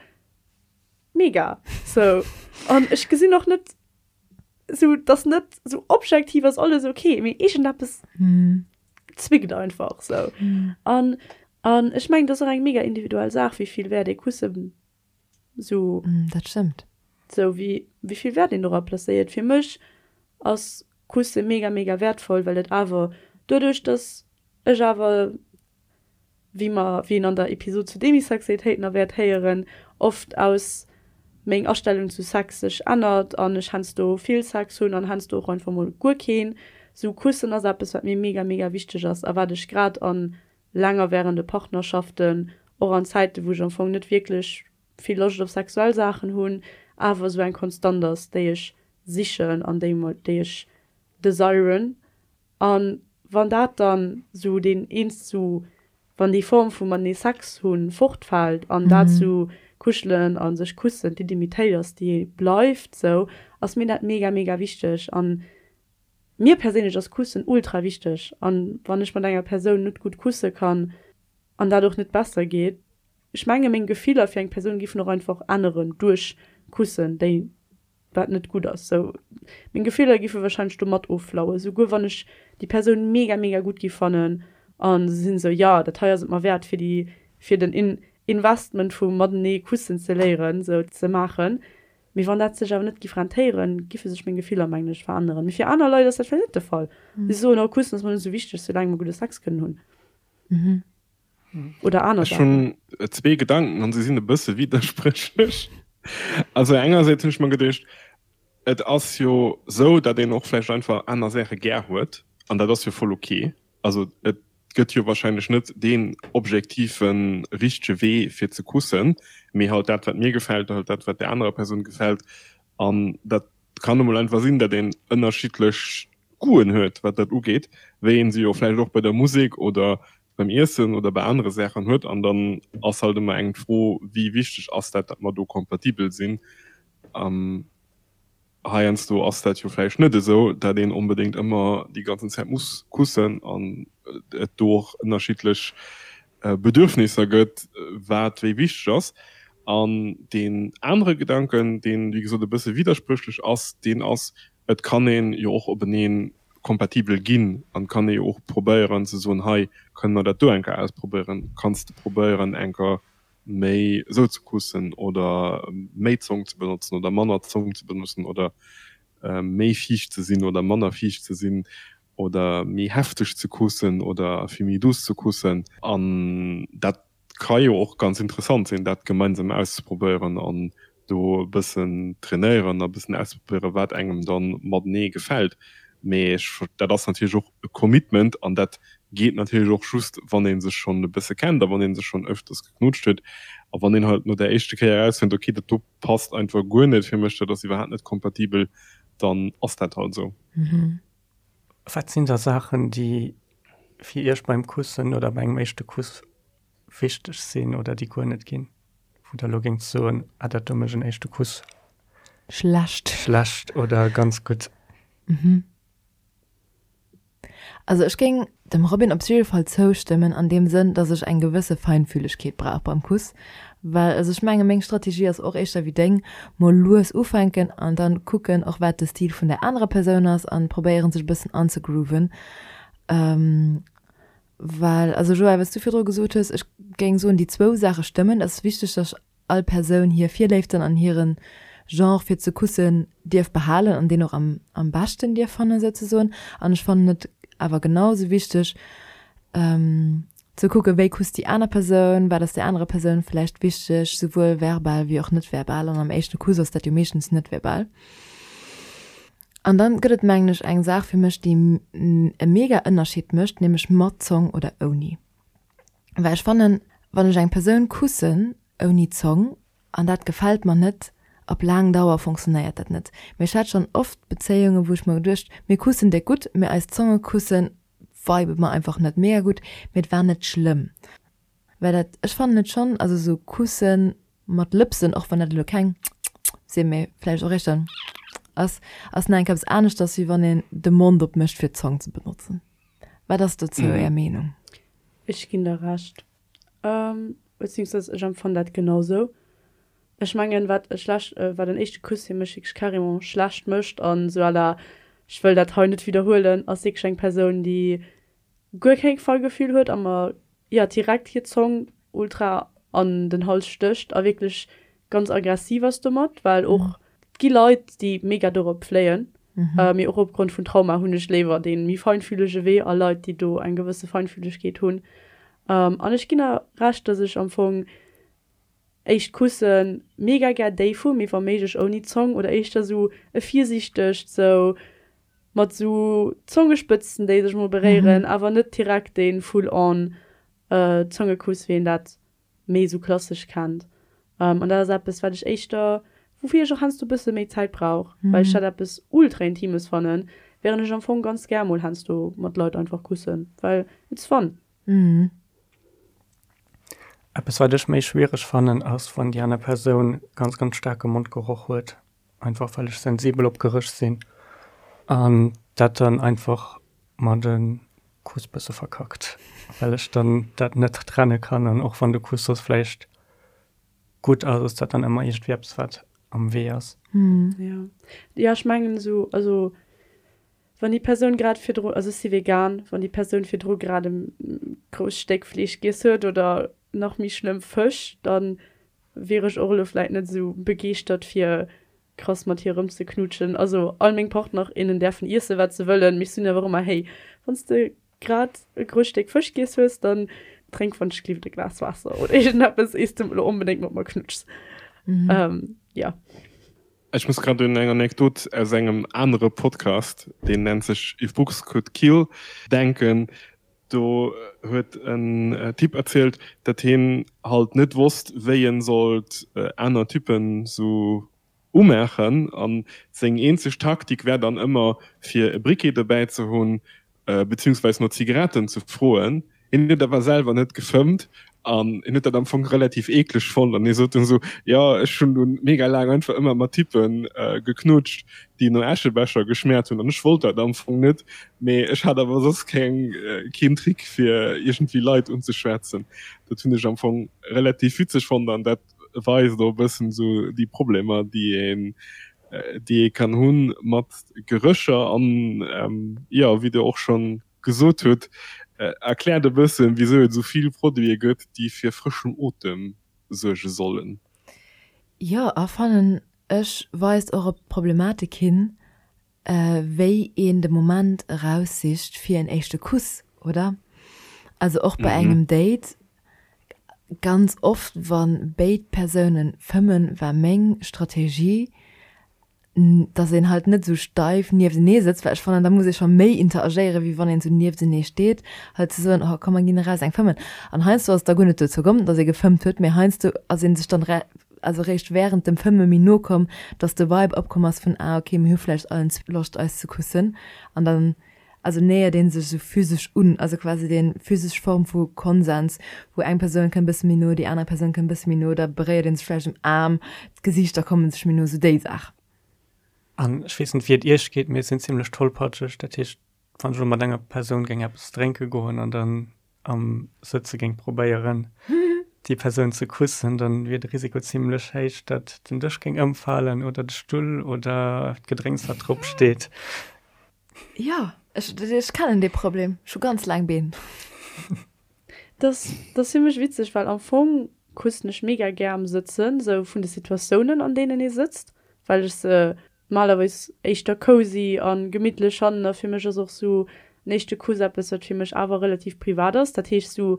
mega sou. An ech gesinn och net, sou dass net sou objektiv ass alles ok, mee iergendeppes zwickt einfach sou. An an ech mengen, dat ass och eng mega individuell Saach, wéi vill Wäert ee Kussen sou. Dat stëmmt. Sou wéi wéi vill Wäert een dora placéiert. Fir mech ass Kusse mega mega wäertvoll, well et awer doduerch, dass ech awer wéi mer, wéi een an der Episod zu Demisexualitéit nach wäert héieren, oft aus meng Astellung zu Sex sech ännert an ech heiansdo vill Sex hunn an heiansdo och einfach mol guer keen. Sou Kussen ass eppes wat mir mega mega wichteg ass a wat ech grad an längerwährende Partnerschaften, och an Zäiten wou ech am Fong net wierklech vill Loscht op sexuell Saachen hunn, awer sou eng Konstant ass déi ech sichen an déi déi ech desiren An wann dat dann sou deen eens sou, wann déi Form vu matenee Sex hunn fortfält an dat sou kuschelen a sech kussen d'Intimitéit ass déi bleift sou, ass mir dat mega mega wichteg. An mir perséinlech ass kussen ultra wichteg. An wann ech mat enger Persoun net gutt kusse kann an dat och net besser geet, ech menge meng Gefiller fir eng Persoun giffen och einfach änneren duerch kussen déi wat net gutt ass. Sou, meng Gefiller giffe wahrscheinlech do mat offlauen, souguer wann ech déi Persoun mega mega gutt giff fannen an se sinn sou, jo dat hei ass et mer wäert fir déi fir den In Investment vu matenee kussen ze léieren sou ze maachen. Mee wann dat sech awer net giff rentéieren, giffe sech meng Gefiller mengen ech veränneren. Mee fir aner Leit ass dat vläicht net de Fall. Si soen, oh kussen ass mer net sou wichteg, soulaang mer gudde Sex kënnen hunn. Oder aner Ech hunn zwee Gedanken an se sinn e bësse widderspréchlech. Also engersäits hunn ech mer geduecht, et ass jo sou, datt een och vläicht einfach aner Saache gär huet an dat ass jo voll ok. Also et gëtt jo wahrscheinlech net deen objektive richtege Wee fir ze kussen, mee halt dat wat mir gefält, halt dat wat där anerer Persoun gefält an dat kann emol einfach sinn, datt een ënnerschiddlech Goûten huet wat dat ugeet, wéi een se jo vläicht och bei der Musek oder beim Iessen oder bei anere Saachen huet. An dann ass halt ëmmer eng d'Fro, wéi wichteg ass dat, datt mer do kompatibel sinn. Heiansdo ass dat jo vläicht net esou, datt een onbedéngt ëmmer déi ganzen Zäit muss kussen an et do och ënnerschiddlech Bedürfnisser gëtt, wat wéi wichteg ass. An deen anere Gedanken, deen, wéi gesot, e bësse widderspréchlech ass, deen ass, et kann ee jo och openee kompatibel ginn an kann ee jo och probéieren ze soen, hei kënne mer dat do eng Kéier ausprobéieren, kanns de probéieren eng Kéier méi esou ze kussen oder méi Zong ze benotzen oder manner Zong ze benotzen oder méi fiicht ze sinn oder manner fiicht ze sinn oder méi hefteg ze kussen oder vill méi douce ze kussen. An dat ka jo och ganz interessant sinn, dat gemeinsam auszeprobéieren an do e bëssen trainéieren a bëssen auszeprobéieren, wat engem dann matenee gefält. Mee ech, dat ass natierlech och e Commitment an dat geet natierlech och just, wann ee sech schonn e bësse kennt a wann ee sech schonn ëfters geknutscht huet a wann een halt no där éischte Kéier erausfënnt, okay, dat do passt einfach guer net fir mech, dat ass iwwerhaapt net kompatibel, dann ass dat halt esou. Wat sinn da Saachen, déi fir Iech beim Kussen oder bei engem éischte Kuss wichteg sinn oder déi guer net ginn? Wou der elo géingt soen, ah dat do mécht en éischte Kuss Schlecht. schlecht oder ganz gutt? Also ech géing dem Robin op jidde Fall zoustëmmen an deem Sënn, dass ech eng gewësse Feinfühlegkeet brauch beim Kuss, well also ech menge meng Strategie ass och éischter wéi deng, mol lues ufänken an dann kucken och wat de Stil vun der anerer Persoun ass an probéieren sech e bëssen anzegrooven. Well also Joël, wat s du virdru gesot hues, ech géing soen déi zwou Saache stëmmen, et ass wichteg, dass all Persoun hir Virléiften an hiren Genre fir ze kussen dierf behalen an deen och am am beschten dierf fannen souzesoen. An ech fannen et awer genau sou wichteg ze kucken, wéi kusst déi aner Persoun, wat ass där anerer Persoun vläicht wichteg, souwuel verbal wéi och net verbal. An am éischte Kuss ass dat jo meeschtens net verbal. An dann gëtt et mengen ech eng Saach fir mech déi e mega Ënnerscheed mécht, nämlech mat Zong oder ouni. Well ech fannen, wann ech eng Persoun kussen ouni Zong an dat gefält mer net, op laang Dauer fonctionnéiert dat net. Mee ech hat schonn oft Bezéiungen, wou ech mer geduecht, mir kussen déck gutt, mee eis Zonge kussen vibe mer einfach net mega gutt, mee et war net schlëmm. Well dat, ech fannen et schonn, also sou kussen mat Lëpsen, och wann dat elo keng sinn, mee vläicht och éischter ass, ass nach eng Kéier eppes aneschters, wéi wann een de Mond opmécht fir d'Zong ze benotzen. Wat ass dozou Är Meenung? Ech ginn der Recht. Beziehungsweise ech empfannen dat genau sou. Ech mengen wat e schlecht, wat en éischte Kuss fir mech wierklech carrément schlecht mécht an sou à la ech wëll dat hei net widderhuelen, ass wierklech eng Persoun déi guer keng Feingefühl huet a mer jo direkt hir Zong ultra an den Hals stécht a wierklech ganz aggressiv ass domat, well och et gi Leit déi mega dorop fléien, mee och opgrond vun Trauma hunn ech léiwer dee méi feinfühlege Wee a Leit déi do eng gewësse Feinfühlegkeet hunn. An ech ginn der Recht, dass ech am Fong éischt Kusse mega gär déif hu, mee wa méiglech ouni Zong oder éischter sou e virsiichtegt sou mat sou Zongespëtzen déi sech mol beréieren, awer net direkt dee full on Zongekuss wéi een dat méi sou klassesch kennt. An dat ass eppes, wat ech éischter, woufir ech och heiansdo e bësse méi Zäit brauch, well ech dat eppes ultra Intimes fannen, wärend ech am Fong ganz gär mol heiansdo mat Leit einfach kussen, well it's fun. Eppes, wat ech méi schwiereg fannen, ass, wann déi aner Persoun ganz, ganz staarke Mondgeroch huet, einfach well ech sensibel op Geréch sinn an dat dann einfach mer de Kuss bësse verkackt, well ech dann dat net trenne kann an och wann de Kuss soss vläicht gutt ass, ass dat dann ëmmer iergendwéi eppes wat am Wee ass. Jo, jo ech mengen esou, also wann déi Persoun grad virdru, also ech si vegan, wann déi Persoun virdru grad e grousst Stéck Fleesch giess huet oder nach méi schlëmm Fësch, dann wier ech och elo vläit net esou begeeschtert fir krass mat hir erëmzeknutschen. Also all meng Partner, innen däerfen iessen wat se wëllen, mee ech soen awer ëmmer, hey, wann s de grad e grousst Stéck Fësch giess hues, dann drénk wann ech gelift e Glas Waasser oder iergendeppes, iers de elo onbedéngt mat mer knutschs. Jo. Ech muss grad un eng Anekdot aus engem anere Podcast, deen nennt sech If Books Could Kill, denken. Do huet en Typ erzielt, datt hien halt net wosst, wéi en sollt aner Typen sou umaachen, an seng eenzeg Taktik wär dann ëmmer fir e Briquet dobäi ze hunn, beziehungsweis no Zigaretten ze froen. Hien huet awer selwer net gefëmmt an hien huet dat am Fong relativ eekleg fonnt an hie sot dunn sou, jo ech hunn dunn mega laang einfach ëmmer mat Typpe geknutscht, déi no Äschebecher geschmäert hunn an ech wollt dat am Fong net, mee ech hat awer soss keng keen Trick fir iergendwéi Leit unzeschwätzen. Dat hunn ech am Fong relativ witzeg fonnt an dat weist och e bëssen sou déi Problemer déi een déi ee kann hunn mat Gerécher an jo wéi der och schonn gesot hutt, erkläert e bëssen wisou et esou vill Produite gëtt déi fir frëschen Otem suerge sollen. Jo, a fannen ech weist och op d'Problematik hin, wéi een de Moment eraussicht fir en éischte Kuss, oder? Also och bei engem Date, ganz oft wa béid Persounen fëmmen, war meng Strategie, dass een halt net esou steif nieftenee sëtzt, well ech fannen, da muss ee scho méi interagéieren, wéi wann een esou nieftenee steet, halt ze soen, oh komm mer ginn eraus eng fëmmen. An heiansdo ass et da guer net dozou komm, dass ee gefëmmt huet, mee heiansdo ass ee sech dann also réischt wärend dem Fëmme méi no komm, dass de Vibe opkomm ass vun, ah okay, mir hu vläicht allen Loscht eis ze kussen. An dann. Also nähert een sech esou physesch un, also quasi dee physesch Form vu Konsens, wou eng Persoun kënnt bësse méi no, déi aner Persoun kënnt bësse méi no, da beréiert een sech vläicht um Aarm, d'Gesiichter komme sech méi no, esou déi Saach. An ech weess net wéi et iech geet, mee ech sinn zimlech tollpatscheg, dat heescht wann ech elo mat enger Persoun géing eppes drénke goen an dann am Sëtze géing probéieren déi Persoun ze kussen, dann wier de Risiko zimlech héich, datt den Dësch géing ëmfalen oder de Stull oder d'Gedrénks wat drop steet. Jo, ech, ech kennen dee Problem. Ech hu ganz laang Been. Dat ass fir mech witzeg, well am Fong kussen ech mega gär am Sëtzen, sou vun de Situatiounen an deenen ee sëtzt, well ech se normalerweis éischter cozy a gemittlech fannen. A fir mech ass och sou en éischte Kuss eppes, wat fir mech awer relativ privat ass. Dat heescht sou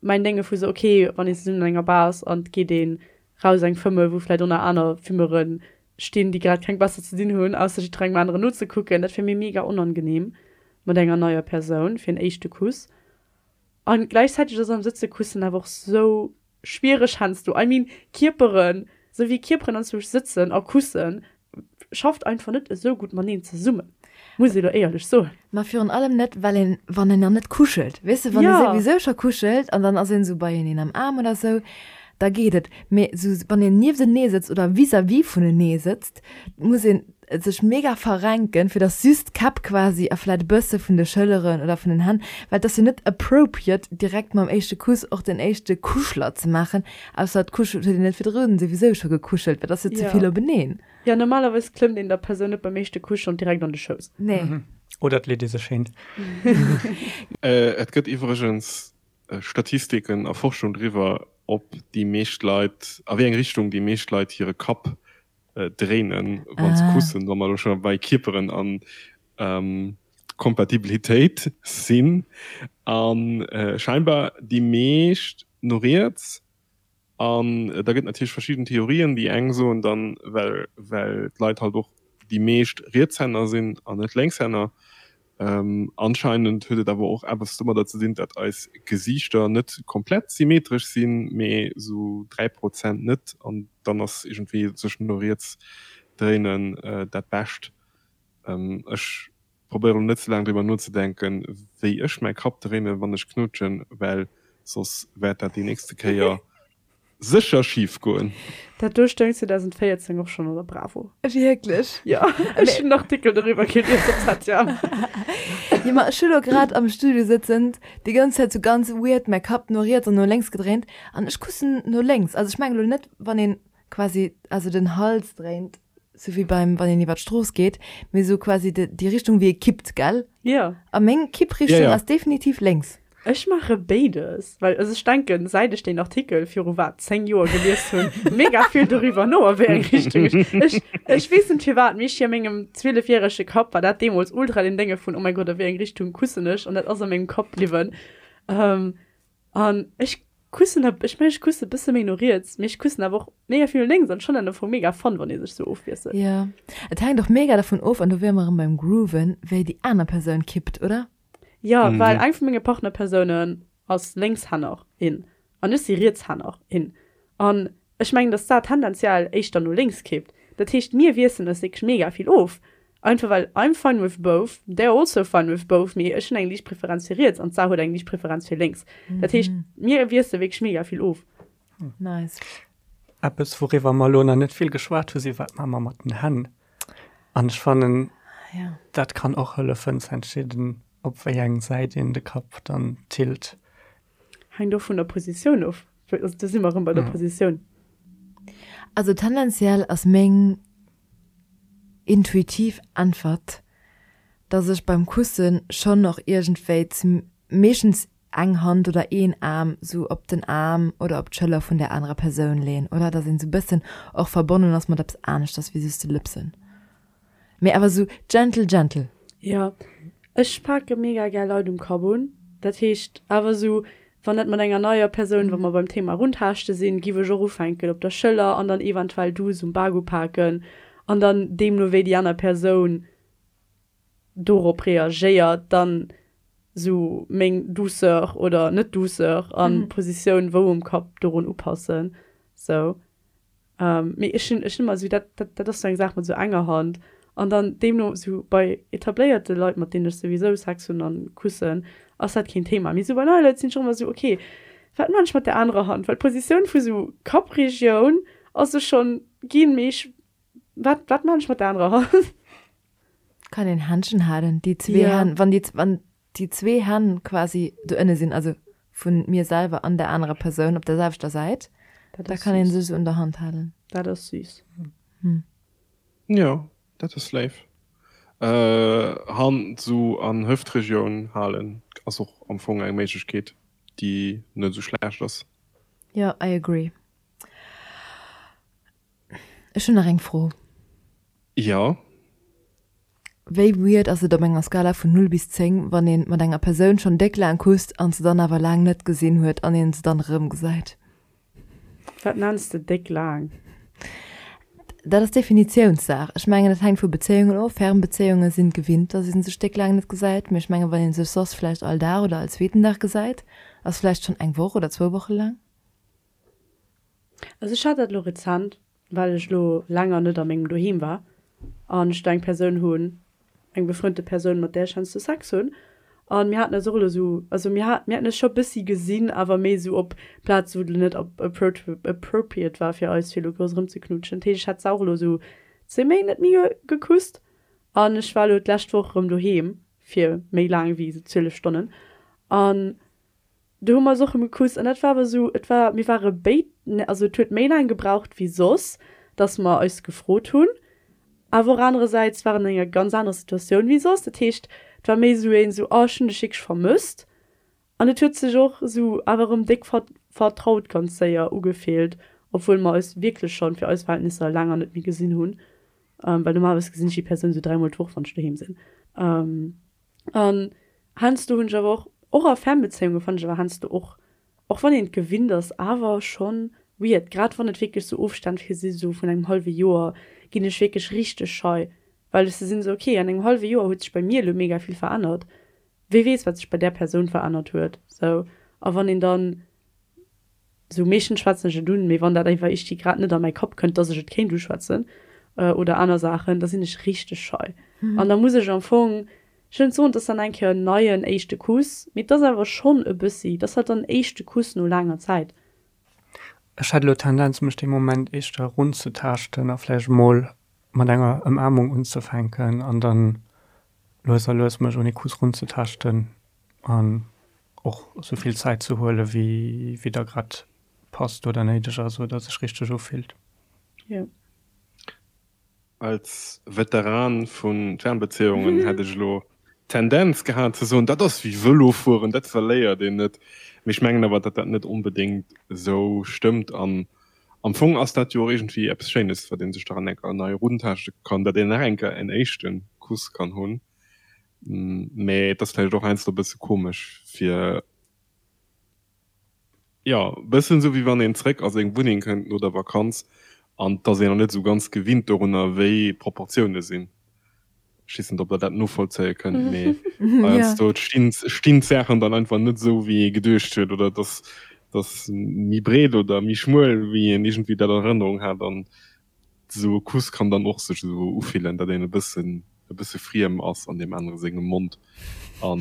mäin Dénge vu sou, ok, wann een zesummen an enger Bar ass an et geet een raus eng fëmme wou vläit och nach aner Fummere stinn, déi grad keng besser ze dinn hunn, ausser jiddwerengem aneren nozekucken, dat wier mir mega onangenehm mat enger neier Persoun fir en éischte Kuss. An gläichzäiteg ass am Sëtze kussen awer och sou schwiereg heiansdo. I mean, Kierperen, sou wéi Kierperen anzwousch sëtzen a kussen, schafft einfach net esou gutt mateneen zesummen, muss ee lo éierlech soen. Ma virun allem net, well een, wann een nach net kuschelt, weess de, wann ee souwisou scho kuschelt an dann ass een esou beieneen am Aarm oder esou, da geet et. Mee esou, wann een nieftenee sëtzt oder vis-à-vis vunenee sëtzt, muss een sech mega verrenken, fir dass just d'Käpp quasi a vläit e bësse vun de Schëlleren oder vun den Hänn, well et ass jo net appropriate, direkt mam éischte Kuss och den éischte Kuschler ze maachen, Ausser et kuschelt huet een net virdrun souwisou scho gekuschelt, well dat ass jo ze vill openeen. Jo, normalerweis klëmmt een der Persoun net beim éischte Kuss schonn direkt an de Schouss. Nee. Oder et leet ee sech hin. Et gëtt iwwregens Statistiken a Forschung driwwer, ob déi meescht Leit, a wéi eng Richtung déi meescht Leit hire Kapp dréinen, wa se kussen, wa mer elo scho bei Kierperen an Kompatibilitéit sinn. A scheinbar déi meescht no riets. An da gëtt natierlech verschidden Theorien. Déi eng soen dann, well well d'Leit halt och déi meescht Rietshänner sinn an net Lénkshänner. Anscheinend huet et awer och eppes domadder ze dinn, dat eis Gesiichter net komplett symmetresch sinn, mee sou 3 Prozent net. An dann ass iergendwéi sech no riets dréinen dat Bescht. Ech probéieren elo net ze laang driwwer nozedenken, wéi ech mäi Kapp dréinen, wann ech knutschen, well soss wäert dat déi nächste Kéier sécher schif goen. Dat do stoung 2014 och schonn an der Bravo. Wierklech? Jo, ech hunn en Artikel doriwwer gelies op ZM. Jo, ma ech hu lo grad am Studio sëtzend déi ganz Zäit sou ganz weird mäi Kapp no riets an no lénks gedréint an ech kussen no lénks. Also ech mengen elo net, wann een quasi, also den Hals dréint, sou wéi beim, wann een iwwer d'Strooss geet, mee sou quasi de, déi Richtung wéi ee kippt, gell? Jo. A meng Kipprichtung Ja, ja. ass definitiv lénks. Ech maache béides, well also ech denken, säit ech deen Artikel viru wat, 10 Joer gelies hunn, mega vill doriwwer no, a wéi eng Richtung ech, ech, ech weess net firwat, mee ech a mengem zwielefjärege Kapp war dat deemools ultra den Dénge vun, oh mäi Gott, a wéi eng Richtung kussen ech, an dat ass a mengem Kapp bliwwen. An ech kussen, ech mengen, ech kusse bësse méi no riets, mee ech kussen awer och mega vill no lénks an ech fannen dat am Fong mega fun, wann ee sech sou ofwiesselt. Jo, et hänkt och mega dervun of, an do wiere mer erëm beim Grooven, wéi déi aner Persoun kippt, oder? Jo, well eng vu menge Partnerpersounen ass Lénkshänner, in, an ech si Rietshänner, in. An ech mengen, dass d'Sar tendenziell éischter no lénks kippt. Dat heescht, mir wiesselen eis wierklech mega vill of. Einfach well I'm fine with both, they're also fine with both, mee ech hunn eng liicht Preferenz fir riets an d'Sar huet eng liicht Preferenz fir lénks. Dat heescht, mir wiessele wierklech mega vill of. Nice. Eppes, wouriwwer mer elo nach net vill geschwat hu si, Wat maache mer mat den Hänn? An ech fannen, ja. dat kann och hëllefen ze entscheeden, op wéi eng Säit een de Kapp dann tilt. Hänkt och vun der Positioun of. Also do si mer erëm bei der Positioun. Also tendenziell ass meng intuitiv Äntwert, dass ech beim Kussen schonn och iergendwéi zum meeschtens eng Hand oder een Aarm sou op den Aarm oder op d'Schëller vun där anerer Persoun leen, oder? Dass een sou bëssen och verbonnen ass mat eppes aneschters wéi just de Lëpsen. Mee awer sou gentle, gentle. Jo, ech pake mega gär Leit um Kapp un. Dat heescht awer sou, wann dat mat enger neier Persoun, wa mer beim Thema Rundhaaschte sinn, giff ech och ufänken op der Schëller an dann eventuell duuss um Bak upaken an dann deemno wéi déi aner Persoun dorop reagéiert, dann sou meng Douceur oder net Douceur an Positioun wou um Kapp dorun upassen sou. Mee ech hunn ech hunn ëmmer sou dat dat dat ass sou eng Saach mat sou enger Hand. An dann deemno sou bei etabléierte Leit, mat deenen ech souwisou Sex hunn an kussen, ass dat keen Thema. Mee sou bei neie Leit sinn ech och ëmmer sou, ok, wat maan ech mat der anerer Hand? Well d'Positioun vu sou Kappregioun ass sou schonn ginn, mee ech, wat, wat maan ech mat der anerer Hand? Kann een Händchen halen, déi zwee Hänn, wann déi, wann déi zwee Hänn quasi do ënne sinn, also vun mir selwer an der anerer Persoun op der selwechter Säit, da kann een sech sou un der Hand halen. Dat ass süß. Jo, dat ass léif. Hand sou an Hëftregioun halen ass och am Fong eng Méiglechkeet, déi net sou schlecht ass. Jo, I agree. Ech hunn nach eng Fro. Jo. Wéi weird ass et op enger Skala vun 0 bis 10, wann een mat enger Persoun schonn déck laang kusst an se dann awer laang net gesinn huet an een se dann erëm gesäit? Wat nenns de déck laang? Dat ass Definitiounssaach. Ech mengen, dat hänkt vu Bezéiungen of. Fernbezéiunge sinn gewinnt, dass ee sech déck laang net gesäit. Mee ech mengen, wann ee sech soss vläicht all Dag oder all zweeten Dag gesäit, ass vläicht schonn eng Woch oder zwou Woche laang. Also ech hat dat elo rezent, well ech elo länger net a mengem Doheem war an ech do eng Persoun hunn, eng befrënnte Persoun, mat där ech heiansdo Sex hunn. An mir haten eis och elo esou, also mir hat, mir haten eis scho bëssi gesinn, awer méi esou op Plaze wou et elo net appropriate war fir eis fir elo grouss erëmzeknutschen. Dat heescht, ech hat se och elo esou zwee Méint net méi gekusst an ech war elo d'lescht Woch erëm doheem fir méi laang wéi esou 12 Stonnen an Do hu mer eis och erëm gekusst an dat war awer esou, et war, mir ware béid, also et huet méi laang gebraucht wéi soss, dass mer eis gefrot hunn, awer och anerersäits war en an enger ganz anerer Situatioun wéi soss. Dat heescht, et war méi esou een esou, oh ech hunn dech wierklech vermësst an et huet sech och esou awer erëm déck vertraut ganz séier ugefillt, obwuel mer eis wierklech schonn fir eis Verhältnisser länger net méi gesinn hunn, well normalerweis gesinn ech déi Persoun esou dräimol d'Woch, wann ech doheem sinn. An heiansdo hunn ech awer och, och a Fernbezéiunge fannen ech awer heiansdo och, och wann een et gewinnt ass, awer schonn weird, grad wann et wierklech sou Ofstänn fir si sou vun engem hallwe Joer, ginn ech wierklech richteg schei, well ech sou sinn, sou ok, an engem hallwe Joer huet sech bei mir elo mega vill verännert, wee weess wat sech bei där Persoun verännert huet, sou. A wann een dann Sou meeschtens schwätzen ech et un, mee wann dat einfach iergdwi grad net a mäi Kapp kënnt, dass ech et kéint uschwätzen oder aner Saachen, da sinn ech richteg schei. An da muss ech am Fong, ech wëll net soen, et ass dann eng Kéier en neien éischte Kuss, mee et ass awer schonn e bëssi, et ass halt dann en éischte Kuss no laanger Zäit. Ech hätt elo d'Tendenz, mech dee Moment éischter erunzetaaschten a vläicht emol mat enger Ëmaarmung unzefänken an dann lues a lues mech un ee Kuss runzetaaschten an och sou vill Zäit ze huele wéi wéi da grad passt oder néideg ass oder sech richteg ufillt. Jo. Als Veteran vu Fernbeziehungen hätt ech elo d'Tendenz gehat ze soen, dat ass wéi Vëlo fueren, dat verléiert een net. Mee ech mengen awer, datt dat net onbedéngt esou stëmmt. An am Fong ass dat jo och iergendwéi eppes Schéines, wat ee sech dran enker nei eruntaaschte kann, datt een nach enker en éischte Kuss kann hunn. Mee et ass vläicht och heiansdo e bësse komesch fir, jo, e bëssen esou wéi wann een zréck a seng Wunneng kënnt no der Vakanz an et ass een nach net esou ganz gewinnt dorunner, wéi d'Proportioune sinn. Ech weess net, ob der dat novollzéie kënnt, mee heiansdo stinn stinn d'Saachen dann einfach net esou, wéi ee geduecht huet oder et ass et ass méi breet oder méi schmuel, wéi een iergendwéi dat an Erënnerung hat an Esou e Kuss kann dann och sech esou ufillen, datt een e bëssen e bësse friem ass an deem anere sengem Mond a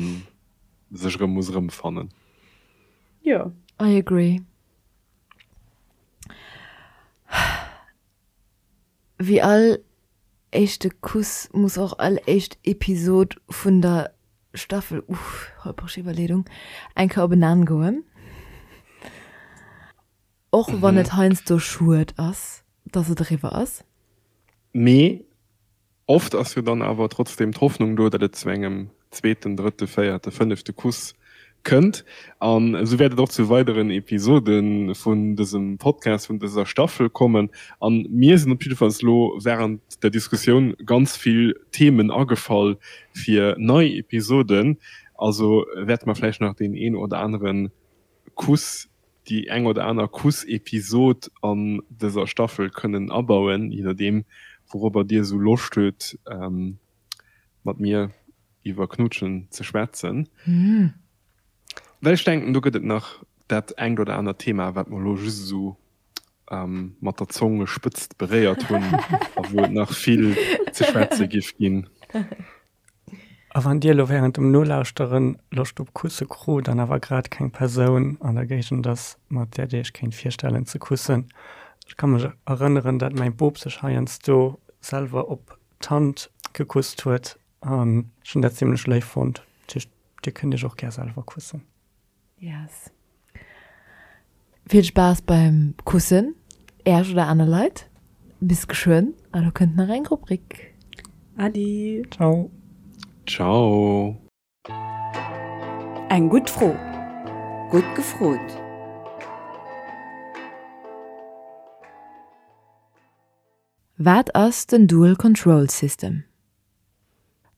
sech erëm muss erëmfannen. Jo. I agree. Wéi all éischte Kuss muss och all éischt Episod vun der Staffel, uff, holpreg Iwwerleedung, eng Kéier op en Enn goen. Och wann et heiansdo schued ass, dass et eriwwer ass. Mee oft ass jo dann awer trotzdem d'Hoffnung do, datt et zu engem zweeten, drëtte, véierte, fënnefte Kuss kënnt. An esou wäert et och zu weideren Episode vun dësem Podcast, vun dëser Staffel kommen. An mir sinn op jiddefalls elo wärend der Diskussioun ganz vill Themen agefall fir nei Episoden. Also wäerte mer vläicht nach deen een oder anere Kuss déi eng oder aner Kuss-Episod an dëser Staffel kënnen abauen, je nodeem wourobber dir esou Loscht hutt mat mir iwwer Knutschen ze schwätzen. Well ech denken do gëtt et nach dat engt oder anert Thema wat mer elo just esou mat der Zongespëtzt beréiert hunn a wou et nach vill. ze schwätze giff ginn. A wann Dir elo während dem Nolauschteren Loscht op Kusse krut an awer grad keng Persoun an der Géigend ass, mat där Dir Iech kéint virstellen ze kussen, ech ka mech erënneren, dat mäi Bop sech heiansdo selwer op d'Hand gekusst huet an ech hunn dat zimlech léif fonnt. Dat heescht, Dir kënnt Iech och gär selwer kussen. Yes. Vill Spaass beim Kussen, Äerch oder aner Leit. Bis geschwënn, a lo kënnt nach eng Rubrik. Adi. Ciao. Ciao. Eng gutt Fro. Gutt gefrot. Wat ass den Dual Control System?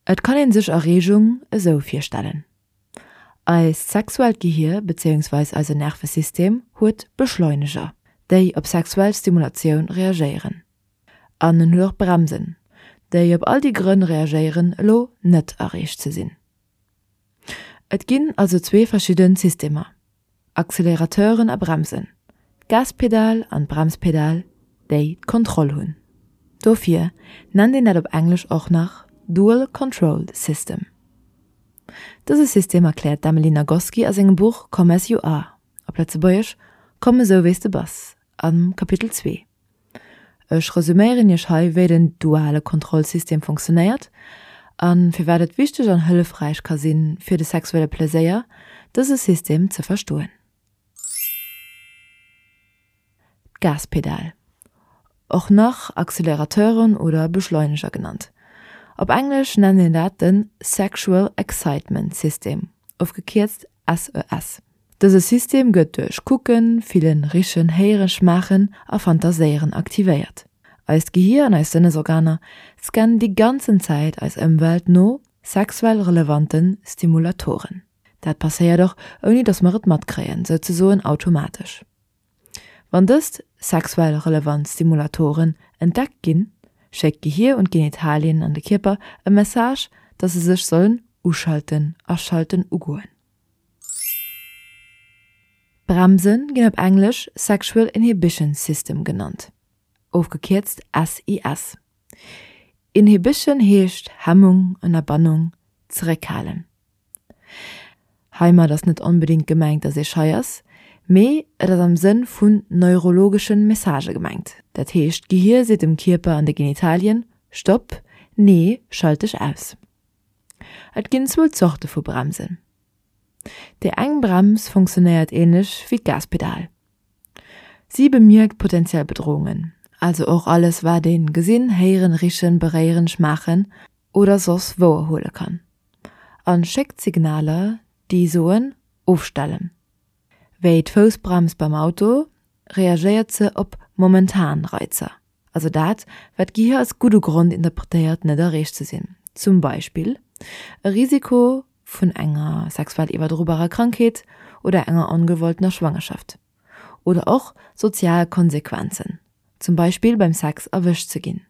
Et kann een sech Erreegung esou virstellen, Eist sexuellt Gehier bezéiungsweis eise Nervesystem huet Beschleuneger, déi op sexuell Stimulatioun reagéieren. An en huet och Bremsen, déi op all déi Grënn reagéieren elo net erreecht ze sinn. Et ginn also zwee verschidden Systemer, Accelerateuren a Bremsen, d'Gaspedal an d'Bremspedal, déi d'Kontroll hunn. Dofir nennt een dat op Englesch och nach Dual Control System. Dëse System erkläert d'Emily Nagoski a sengem Buch Come As You Are, op Lëtzebuergesch Komm esou wéi s de bass, am Kapitel 2. Ech resuméieren iech hei wéi den duale Kontrollsystem funktionéiert a firwat et wichteg an hëllefräich ka sinn fir de sexuelle Pleséier dëse System ze verstoen. D'Gaspedal, och nach Accelerateuren oder Beschleuneger genannt, op Englesch nennt een dat den Sexual Excitement System, ofgekierzt SES. Dëse System gëtt duerch Kucken, Fillen, Richen, Héieren, Schmaachen a Fantaséieren aktivéiert. Eist Gehier an eis Sënnesorganer scannen déi ganzen Zäit eis Ëmwelt no sexuell relevanten Stimulatoren. Dat passéiert och ouni dass mer et matkréien, souzesoen automatesch. Wann dëst sexuell relevant Stimulatoren entdeckt ginn, schéckt d'Gehier un d'Genitalien an de Kierper e Message, dass se sech sollen uschalten, aschalten, ugoen. Bremse ginn op Englesch Sexual Inhibition System genannt, ofgekierzt SIS. Inhibition heescht Hemmung, Ënnerbannung, zeréckhalen. Heimat ass net onbedéngt gemengt, dass ee schei ass, mee et ass am Sënn vun neurologesche Messagë gemengt. Dat heescht, d'Gehier seet dem Kierper an de Genitalien, Stopp, nee, schalt dech aus. Et ginn zwou Zorte vu Bremsen. Déi eng Brems funktionéiert änlech wéi d'Gaspedal. Si bemierkt potenziell Bedroungen, also och alles wat een gesinn, héieren, richen, beréieren, schmaachen oder soss wouerhuele kann, an schéckt Signaler déi soen ofstellen. Wéi d'Foussbrems beim Auto reagéiert se op momentan Reizer. Also dat, wat d'Gehier als gudde Grond interpretéiert net erreecht ze sinn, zum Beispill e Risiko vun enger sexuell iwwerdrobarer Krankheet oder enger ongewolltener Schwangerschaft, oder och sozial Konsequenzen, zum Beispill beim Sex erwëscht ze ginn.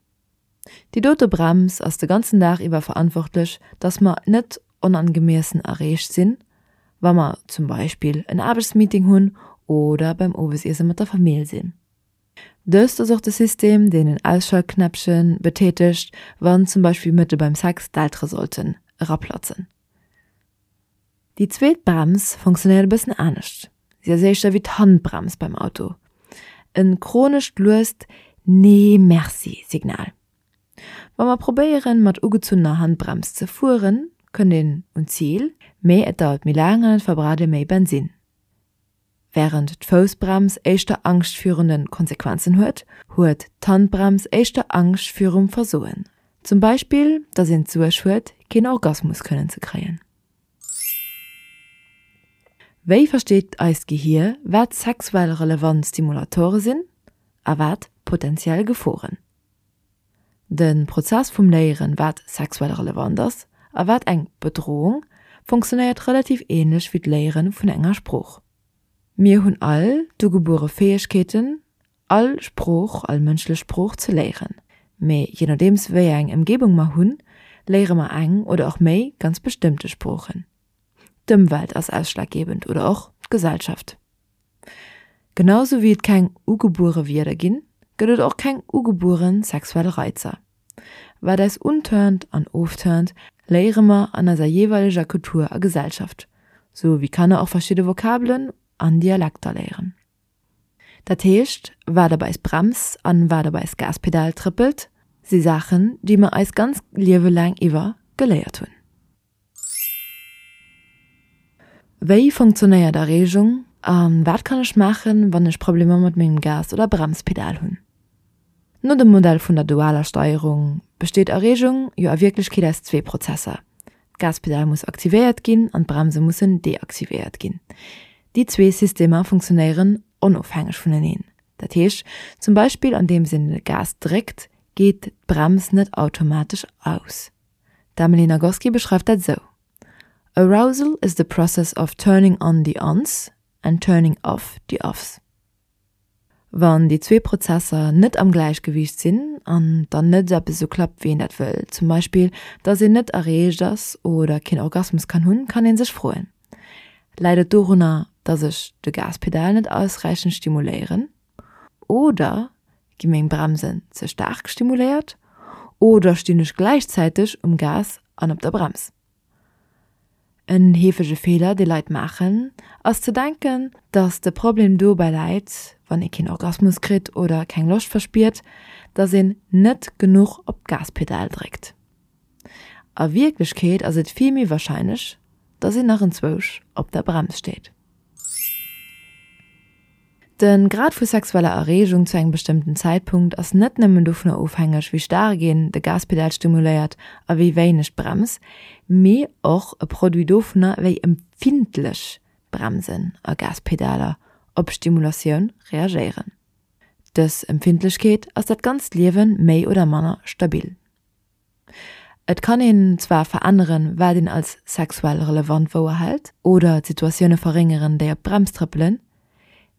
Déi dote Brems ass de ganzen Dag iwwer verantwortlech, dass mer net onangemiessen erreecht sinn, wa mer zum Beispill en Aarbechtsmeeting hunn oder beim Owesiesse mat der Famill sinn. Dëst ass och de System, deen en Ausschaltknäppche betätegt, wann zum Beispill mëtte beim Sex d'Eltere sollten eraplatzen. Déi zweet Brems funktionéiert e bëssen anescht. Si ass éischter wéi d'Handbrems beim Auto, e chronescht luest Nee merci Signal. Wa mer probéieren, mat ugezunnener Handbrems ze fueren, kënnt een un d'Zil, mee et dauert méi laang an et verbraucht ee méi Bensinn. Wärend d'Foussbrems éischter Angscht virun de Konsequenzen huet, huet d'Handbrems éischter Angscht virum Versoen. Zum Beispill, datt een d'Suerg huet, keen Orgasmus kënnen ze kréien. Wéi versteet eist Gehier, wat sexuell relevant Stimulatore sinn a wat potenziell Geforen? De Prozess vum Léieren, wat sexuell relevant ass a wat eng Bedrohung, funktionéiert relativ ähnlech wéi d'Léiere vun enger Sprooch. Mir hunn all d'ugebuere Fäegkeeten, all Sprooch, all mënschlech Sprooch ze léieren. Mee je nodeems wéi eng Ëmgebung mer hunn, léiere mer eng oder och méi ganz bestëmmte Sproochen. D'Ëmwelt ass ausschlaggebend oder och d'Gesellschaft. Genau sou wéi et keng ugebuere Wierder ginn, gëtt et och keng ugebuere sexuell Reizer. Wat eis unturnt an ofturnt, léiere mer an eiser jeeweileger Kultur a Gesellschaft, sou wéi Kanner och verschidde Vokabelen an Dialekter léieren. Dat heescht, wat op eis Brems an wat op eis Gaspedal trëppelt, si Saachen, déi mer eis ganz Liewe laang iwwer geléiert hunn. Wéi funktionéiert Erreegung a wat kann ech maachen, wann ech Problemer mat mengem Gas oder Bremspedal hunn? No dem Modell vun der dualer Steierung besteet Erreegung jo a Wierklechkeet aus zwee Prozesser, D'Gaspedal muss aktivéiert ginn an d'Bremse mussen deaktivéiert ginn. Déi zwee Systemer funktionéieren onofhängeg vuneneen. Dat heescht zum Beispill andeems een de Gas dréckt, geet d'Brems net automatesch aus. D'Emily Nagoski beschreift dat esou, Arousal is the process of turning on the ons and turning off the offs. Wann déi zwee Prozesser net am Gläichgewiicht sinn an dann net eppes esou klappt wéi een dat wëll, zum Beispill dass een net erreegt ass oder keen Orgasmus kann hunn, kann een sech froen, Läit et dorunner, dass ech de Gaspedal net ausräichend stimuléieren? Oder gi meng Bremsen ze staark stimuléiert? Oder stinn ech gläichzäiteg um Gas an op der Brems? En heefege Feeler, dee Leit maachen, ass ze denken, dass de Problem dobäi läit, wann ee keen Orgasmus kritt oder keng Loscht verspiert, dass een net genuch op d'Gaspedal dréckt. A Wierklechkeet ass et vill méi warscheinlech, dass een nach enzwousch op der Brems steet. De Grad vu sexueller Erreegung zu engem bestëmmten Zäitpunkt ass net nëmmen dovunner ofhängeg, wéi staark een de Gaspedal stimuléiert a wéi wéineg d'Brems, mee och e Produit dovunner, wéi empfindlech Bremsen a Gaspedaler op Stimulatioun reagéieren. Dës Empfindlechkeet ass dat ganzt Liewe méi oder manner stabil. Et kann een zwar veränneren, wat een als sexuell relevant wouerhält, oder d'Situatioune verréngeren, déi op d'Brems trëppelen,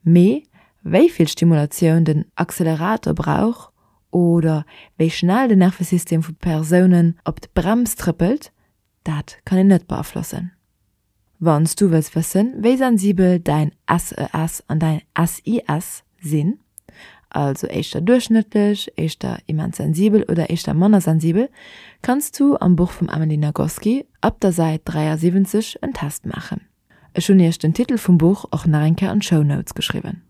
mee wéi vill Stimulatioun den Accelerator brauch oder wéi schnell den Nervesystem vu Persounen op d'Brems trëppelt, dat kann een net beaflossen. Wann s du wëlls wëssen, wéi sensibel däin SES an däin SIS sinn, also éischter duerchschnëttlech, éischter immens sensibel oder éischter manner sensibel, kanns du am Buch vum Emily Nagoski ab der Säit 73 en Test maachen. Ech hunn iech den Titel vum Buch och nach eng Kéier an d'Show Notes geschriwwen.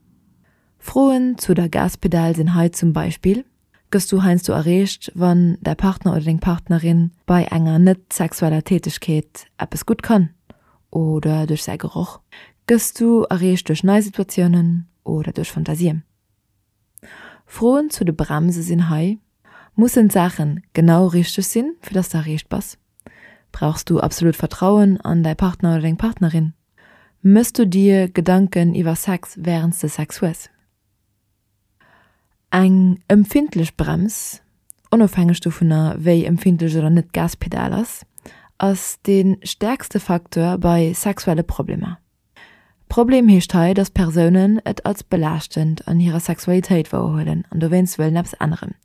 Froen zu der Gaspedal sinn hei zum Beispill, Gëss du heiansdo erreecht, wann däi Partner oder deng Partnerin bei enger net sexueller Tätegkeet eppes gutt kann oder duerch säi Geroch? Gëss du erreecht duerch nei Situatiounen oder duerch Fantasien? Froen zu de Bremse sinn hei, Mussen d'Saachen genau richteg sinn, fir dass de erreecht bass? Brauchs du absolut Vertrauen an däi Partner oder deng Partnerin? Mëss du dir Gedanken iwwer Sex wärends de Sex hues? Eng empfindlech Brems, onofhängeg dovunner wéi empfindlech oder net d'Gaspedal ass, ass dee stäerkste Facteur bei sexuelle Problemer. Problem heescht hei, dass Persounen et als belaaschtend an hirer Sexualitéit wouerhuelen an dowéinst wëllen eppes änneren.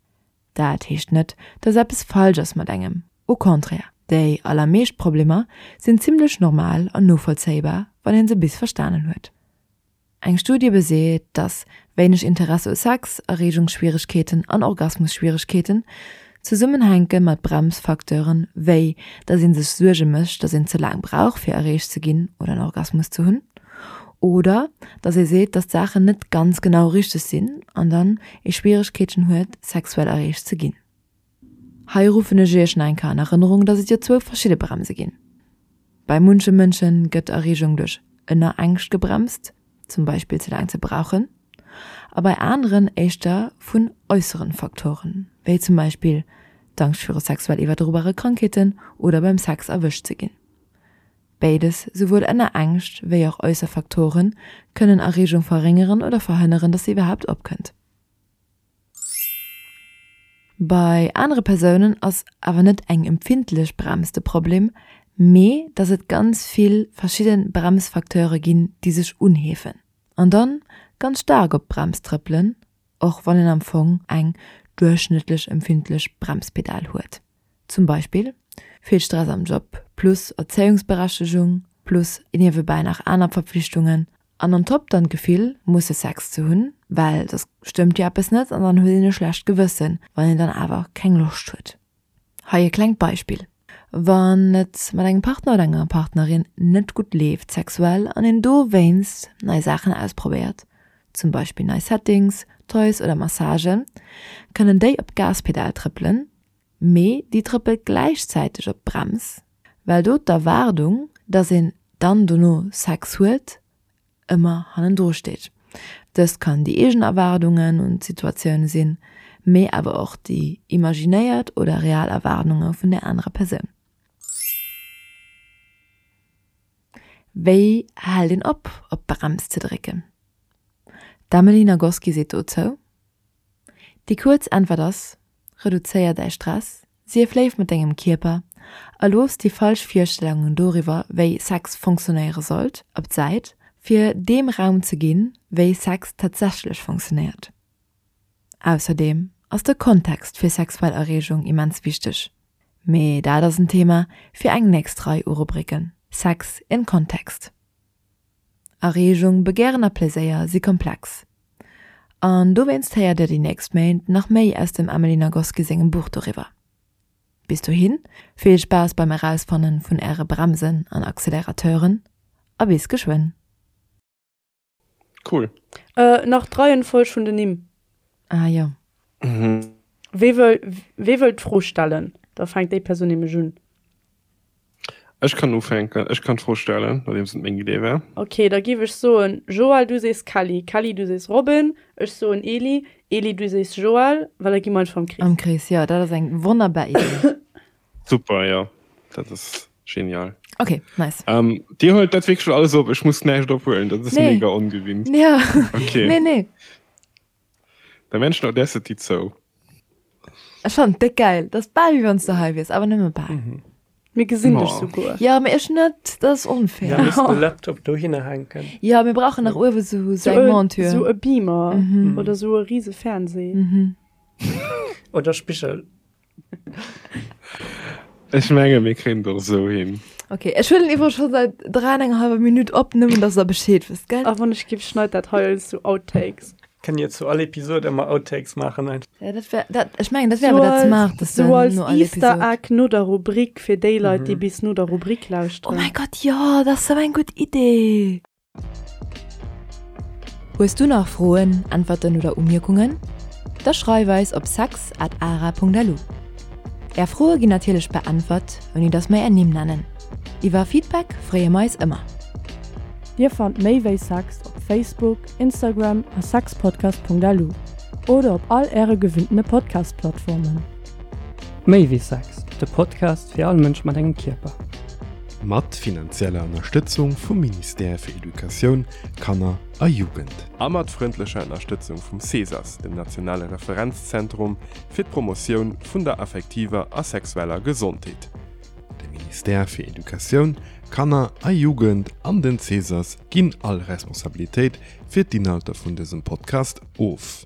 Dat heescht net, dass eppes falsch ass mat engem, au contraire, déi allermeescht Problemer sinn zimmlech normal an novollzéibar, wann een se bis verstanen huet. Eng Studie beseet, dass wéineg Interesse u Sex, Erreegungsschwieregkeeten an Orgasmusschwieregkeeten zesummenhänke mat Bremsfacteuren, wéi dass ee sech Suerge mécht, dass een ze laang brauch fir erreegt ze ginn oder en Orgasmus ze hunn, oder dass ee seet, dass d'Saachen net ganz genau richteg sinn an dann ee Schwieregkeeten huet, sexuell erreegt ze ginn. Hei ruffen ech iech nach eng Kéier an Erënnerung, dass et jo zwou verschidde Bremse ginn. Bei munche Mënsche gëtt Erreegung duerch Ënnerängscht gebremst, zum Beispill ze laang ze brauchen, a bei aneren éischter vun äusseren Faktoren, wéi zum Beispill d'Angscht viru sexuell iwwerdrobare Krankheeten oder beim Sex erwëscht ze ginn. Béides, souwuel Ënnerängscht wéi och äusser Faktoren, kënnen Erreegung verréngeren oder verhënneren, dass se iwwerhaapt opkënnt. Bei anere Persounen ass awer net eng empfindlech Brems de Problem, mee dass et ganz vill verschidde Bremsfacteure ginn, déi sech unheefen an dann ganz staark op d'Brems trëppelen, och wann een am Fong eng duerchschnëttlech empfindlech Bremspedal huet. Zum Beispill vill Stress am Job plus Erzéiungsberechtegung plus niewebäi nach aner Verpflichtungen an on top dann d'Gefill musse Sex ze hunn, well soss stëmmt jo eppes net an dann huet een e schlecht Gewëssen, wann een dann awer keng Loscht huet. Hei e klengt Beispill, Wann et mat engem Partner oder enger Partnerin net gutt leeft sexuell an een dowéinst nei Saachen ausprobéiert, zum Beispill nei Settings, Toys oder Massagen, kënnen déi op d'Gaspedal trëppelen, mee déi trëppelt gläichzäiteg op d'Brems, well do d'Erwaardung, dass een dann dono Sex huet, ëmmer hannendru steet. Dëst kann déi eegen Erwaardungen un d'Situatioun sinn, mee awer och déi imaginéiert oder real Erwaardunge vun der anerer Persoun. Wéi hält een op, op d'Brems ze drécken? D'Emily Nagoski seet dozou, Déi kuerz Äntwert ass, Reduzéier däi Stress, sief léif mat dengem Kierper a looss déi falsch Virstellungen doriwwer, wéi Sex funktionéiere sollt, op d'Säit, fir deem Raum ze ginn, wéi Sex tatsächlech funktionéiert. Ausserdeem ass de Kontext fir sexuell Erreegung immens wichteg, mee dat ass en Thema fir eng nächst Rei u Rubriken, Sex in Context. Erreegung, Begären a Pleséier si komplex. An dowéinst héiert Dir déi nächst Méint nach méi aus dem Emily Nagoski sengem Buch doriwwer. Bis dohin, vill Spaass beim Erausfannen vun Äre Bremsen an Accelerateuren a bis geschwënn! Cool. Nach d'Reihenfolg vun den Nimm. Ah jo. Wee wëll, wee wëll d'Fro stellen? Da fänkt déi Persoun nämlech un. Ech kann ufänken, ech kann d'Fro stellen, nodeems et meng Idee war. Ok, da giff ech soen, Joël, du sees Kelly, Kelly, du sees Robin, ech soen Eli, Eli, du sees Joël, well da gi mer einfach am Krees. Am Krees, jo, dat ass eng wonnerbar Idee. Super, jo, dat ass genial. Ok, nice. Ähm, Dir huelt dat wierklech alles op, ech muss näischt ophuelen, dat ass Nee. mega ongewinnt. Ja. Ok. Nee, nee. Der Mensch Audacity zou. Ech fannen et déck geil. Dat ass bal wéi wann s de hei wiers, awer nëmme bal. Mir gesinn dech Oh. souguer. Ja, mee ech net, dat ass onfair. Ja, misst de Laptop dohinner hänken. Ja, mir brauchen nach uewe sou Sou eng e, Monture. sou e Beamer Mhm. oder sou e rise Fernseh. Mhm. Oder Spigel. Ech menge mir kréien et och esou hin. Ok, ech huelen iwwer scho säit 3 an enger halwer Minutt op, nëmmen dass der Bescheed wësst, gell? A wann ech giff, schneit dat hei als sou Outtakes. Kënnt dir zu all Episode ëmmer Outtakes maachen einfach. Ja, dat wär, dat, ech mengen, dat wär awer dat Smarteste Sou als no all Easter Episode. Egg no der Rubrik fir déi Leit, déi bis no der Rubrik Oh lauschteren. mäi Gott, jo, dat ass sou eng gutt Idee! Hues du nach Froen, Äntwerten oder Umierkungen? Da schreif eis op sex at ara.lu. Är Froe ginn natierlech beäntwert, ouni dass mer är Nimm nennen. Iwwer Feedback freeë mer eis ëmmer. Dir fannt méi wéi Sex op Facebook, Instagram a sexpodcast.lu oder op all äre gewinntene Podcast-Plattformen. Méi wéi Sex, de Podcast fir all Mënsch mat engem Kierper. Mat finanzieller Ënnerstëtzung vum Ministère fir Educatioun, Kanner a Jugend. A mat frëndlecher Ënnerstëtzung vum CESAS, dem nationale Referenzzentrum fir d'Promotioun vun der affektiver a sexueller Gesondheet. De Ministère fir Educatioun, Kanner a Jugend an den CESAS ginn all Responsabilitéit fir d'Inhalter vun dësem Podcast of.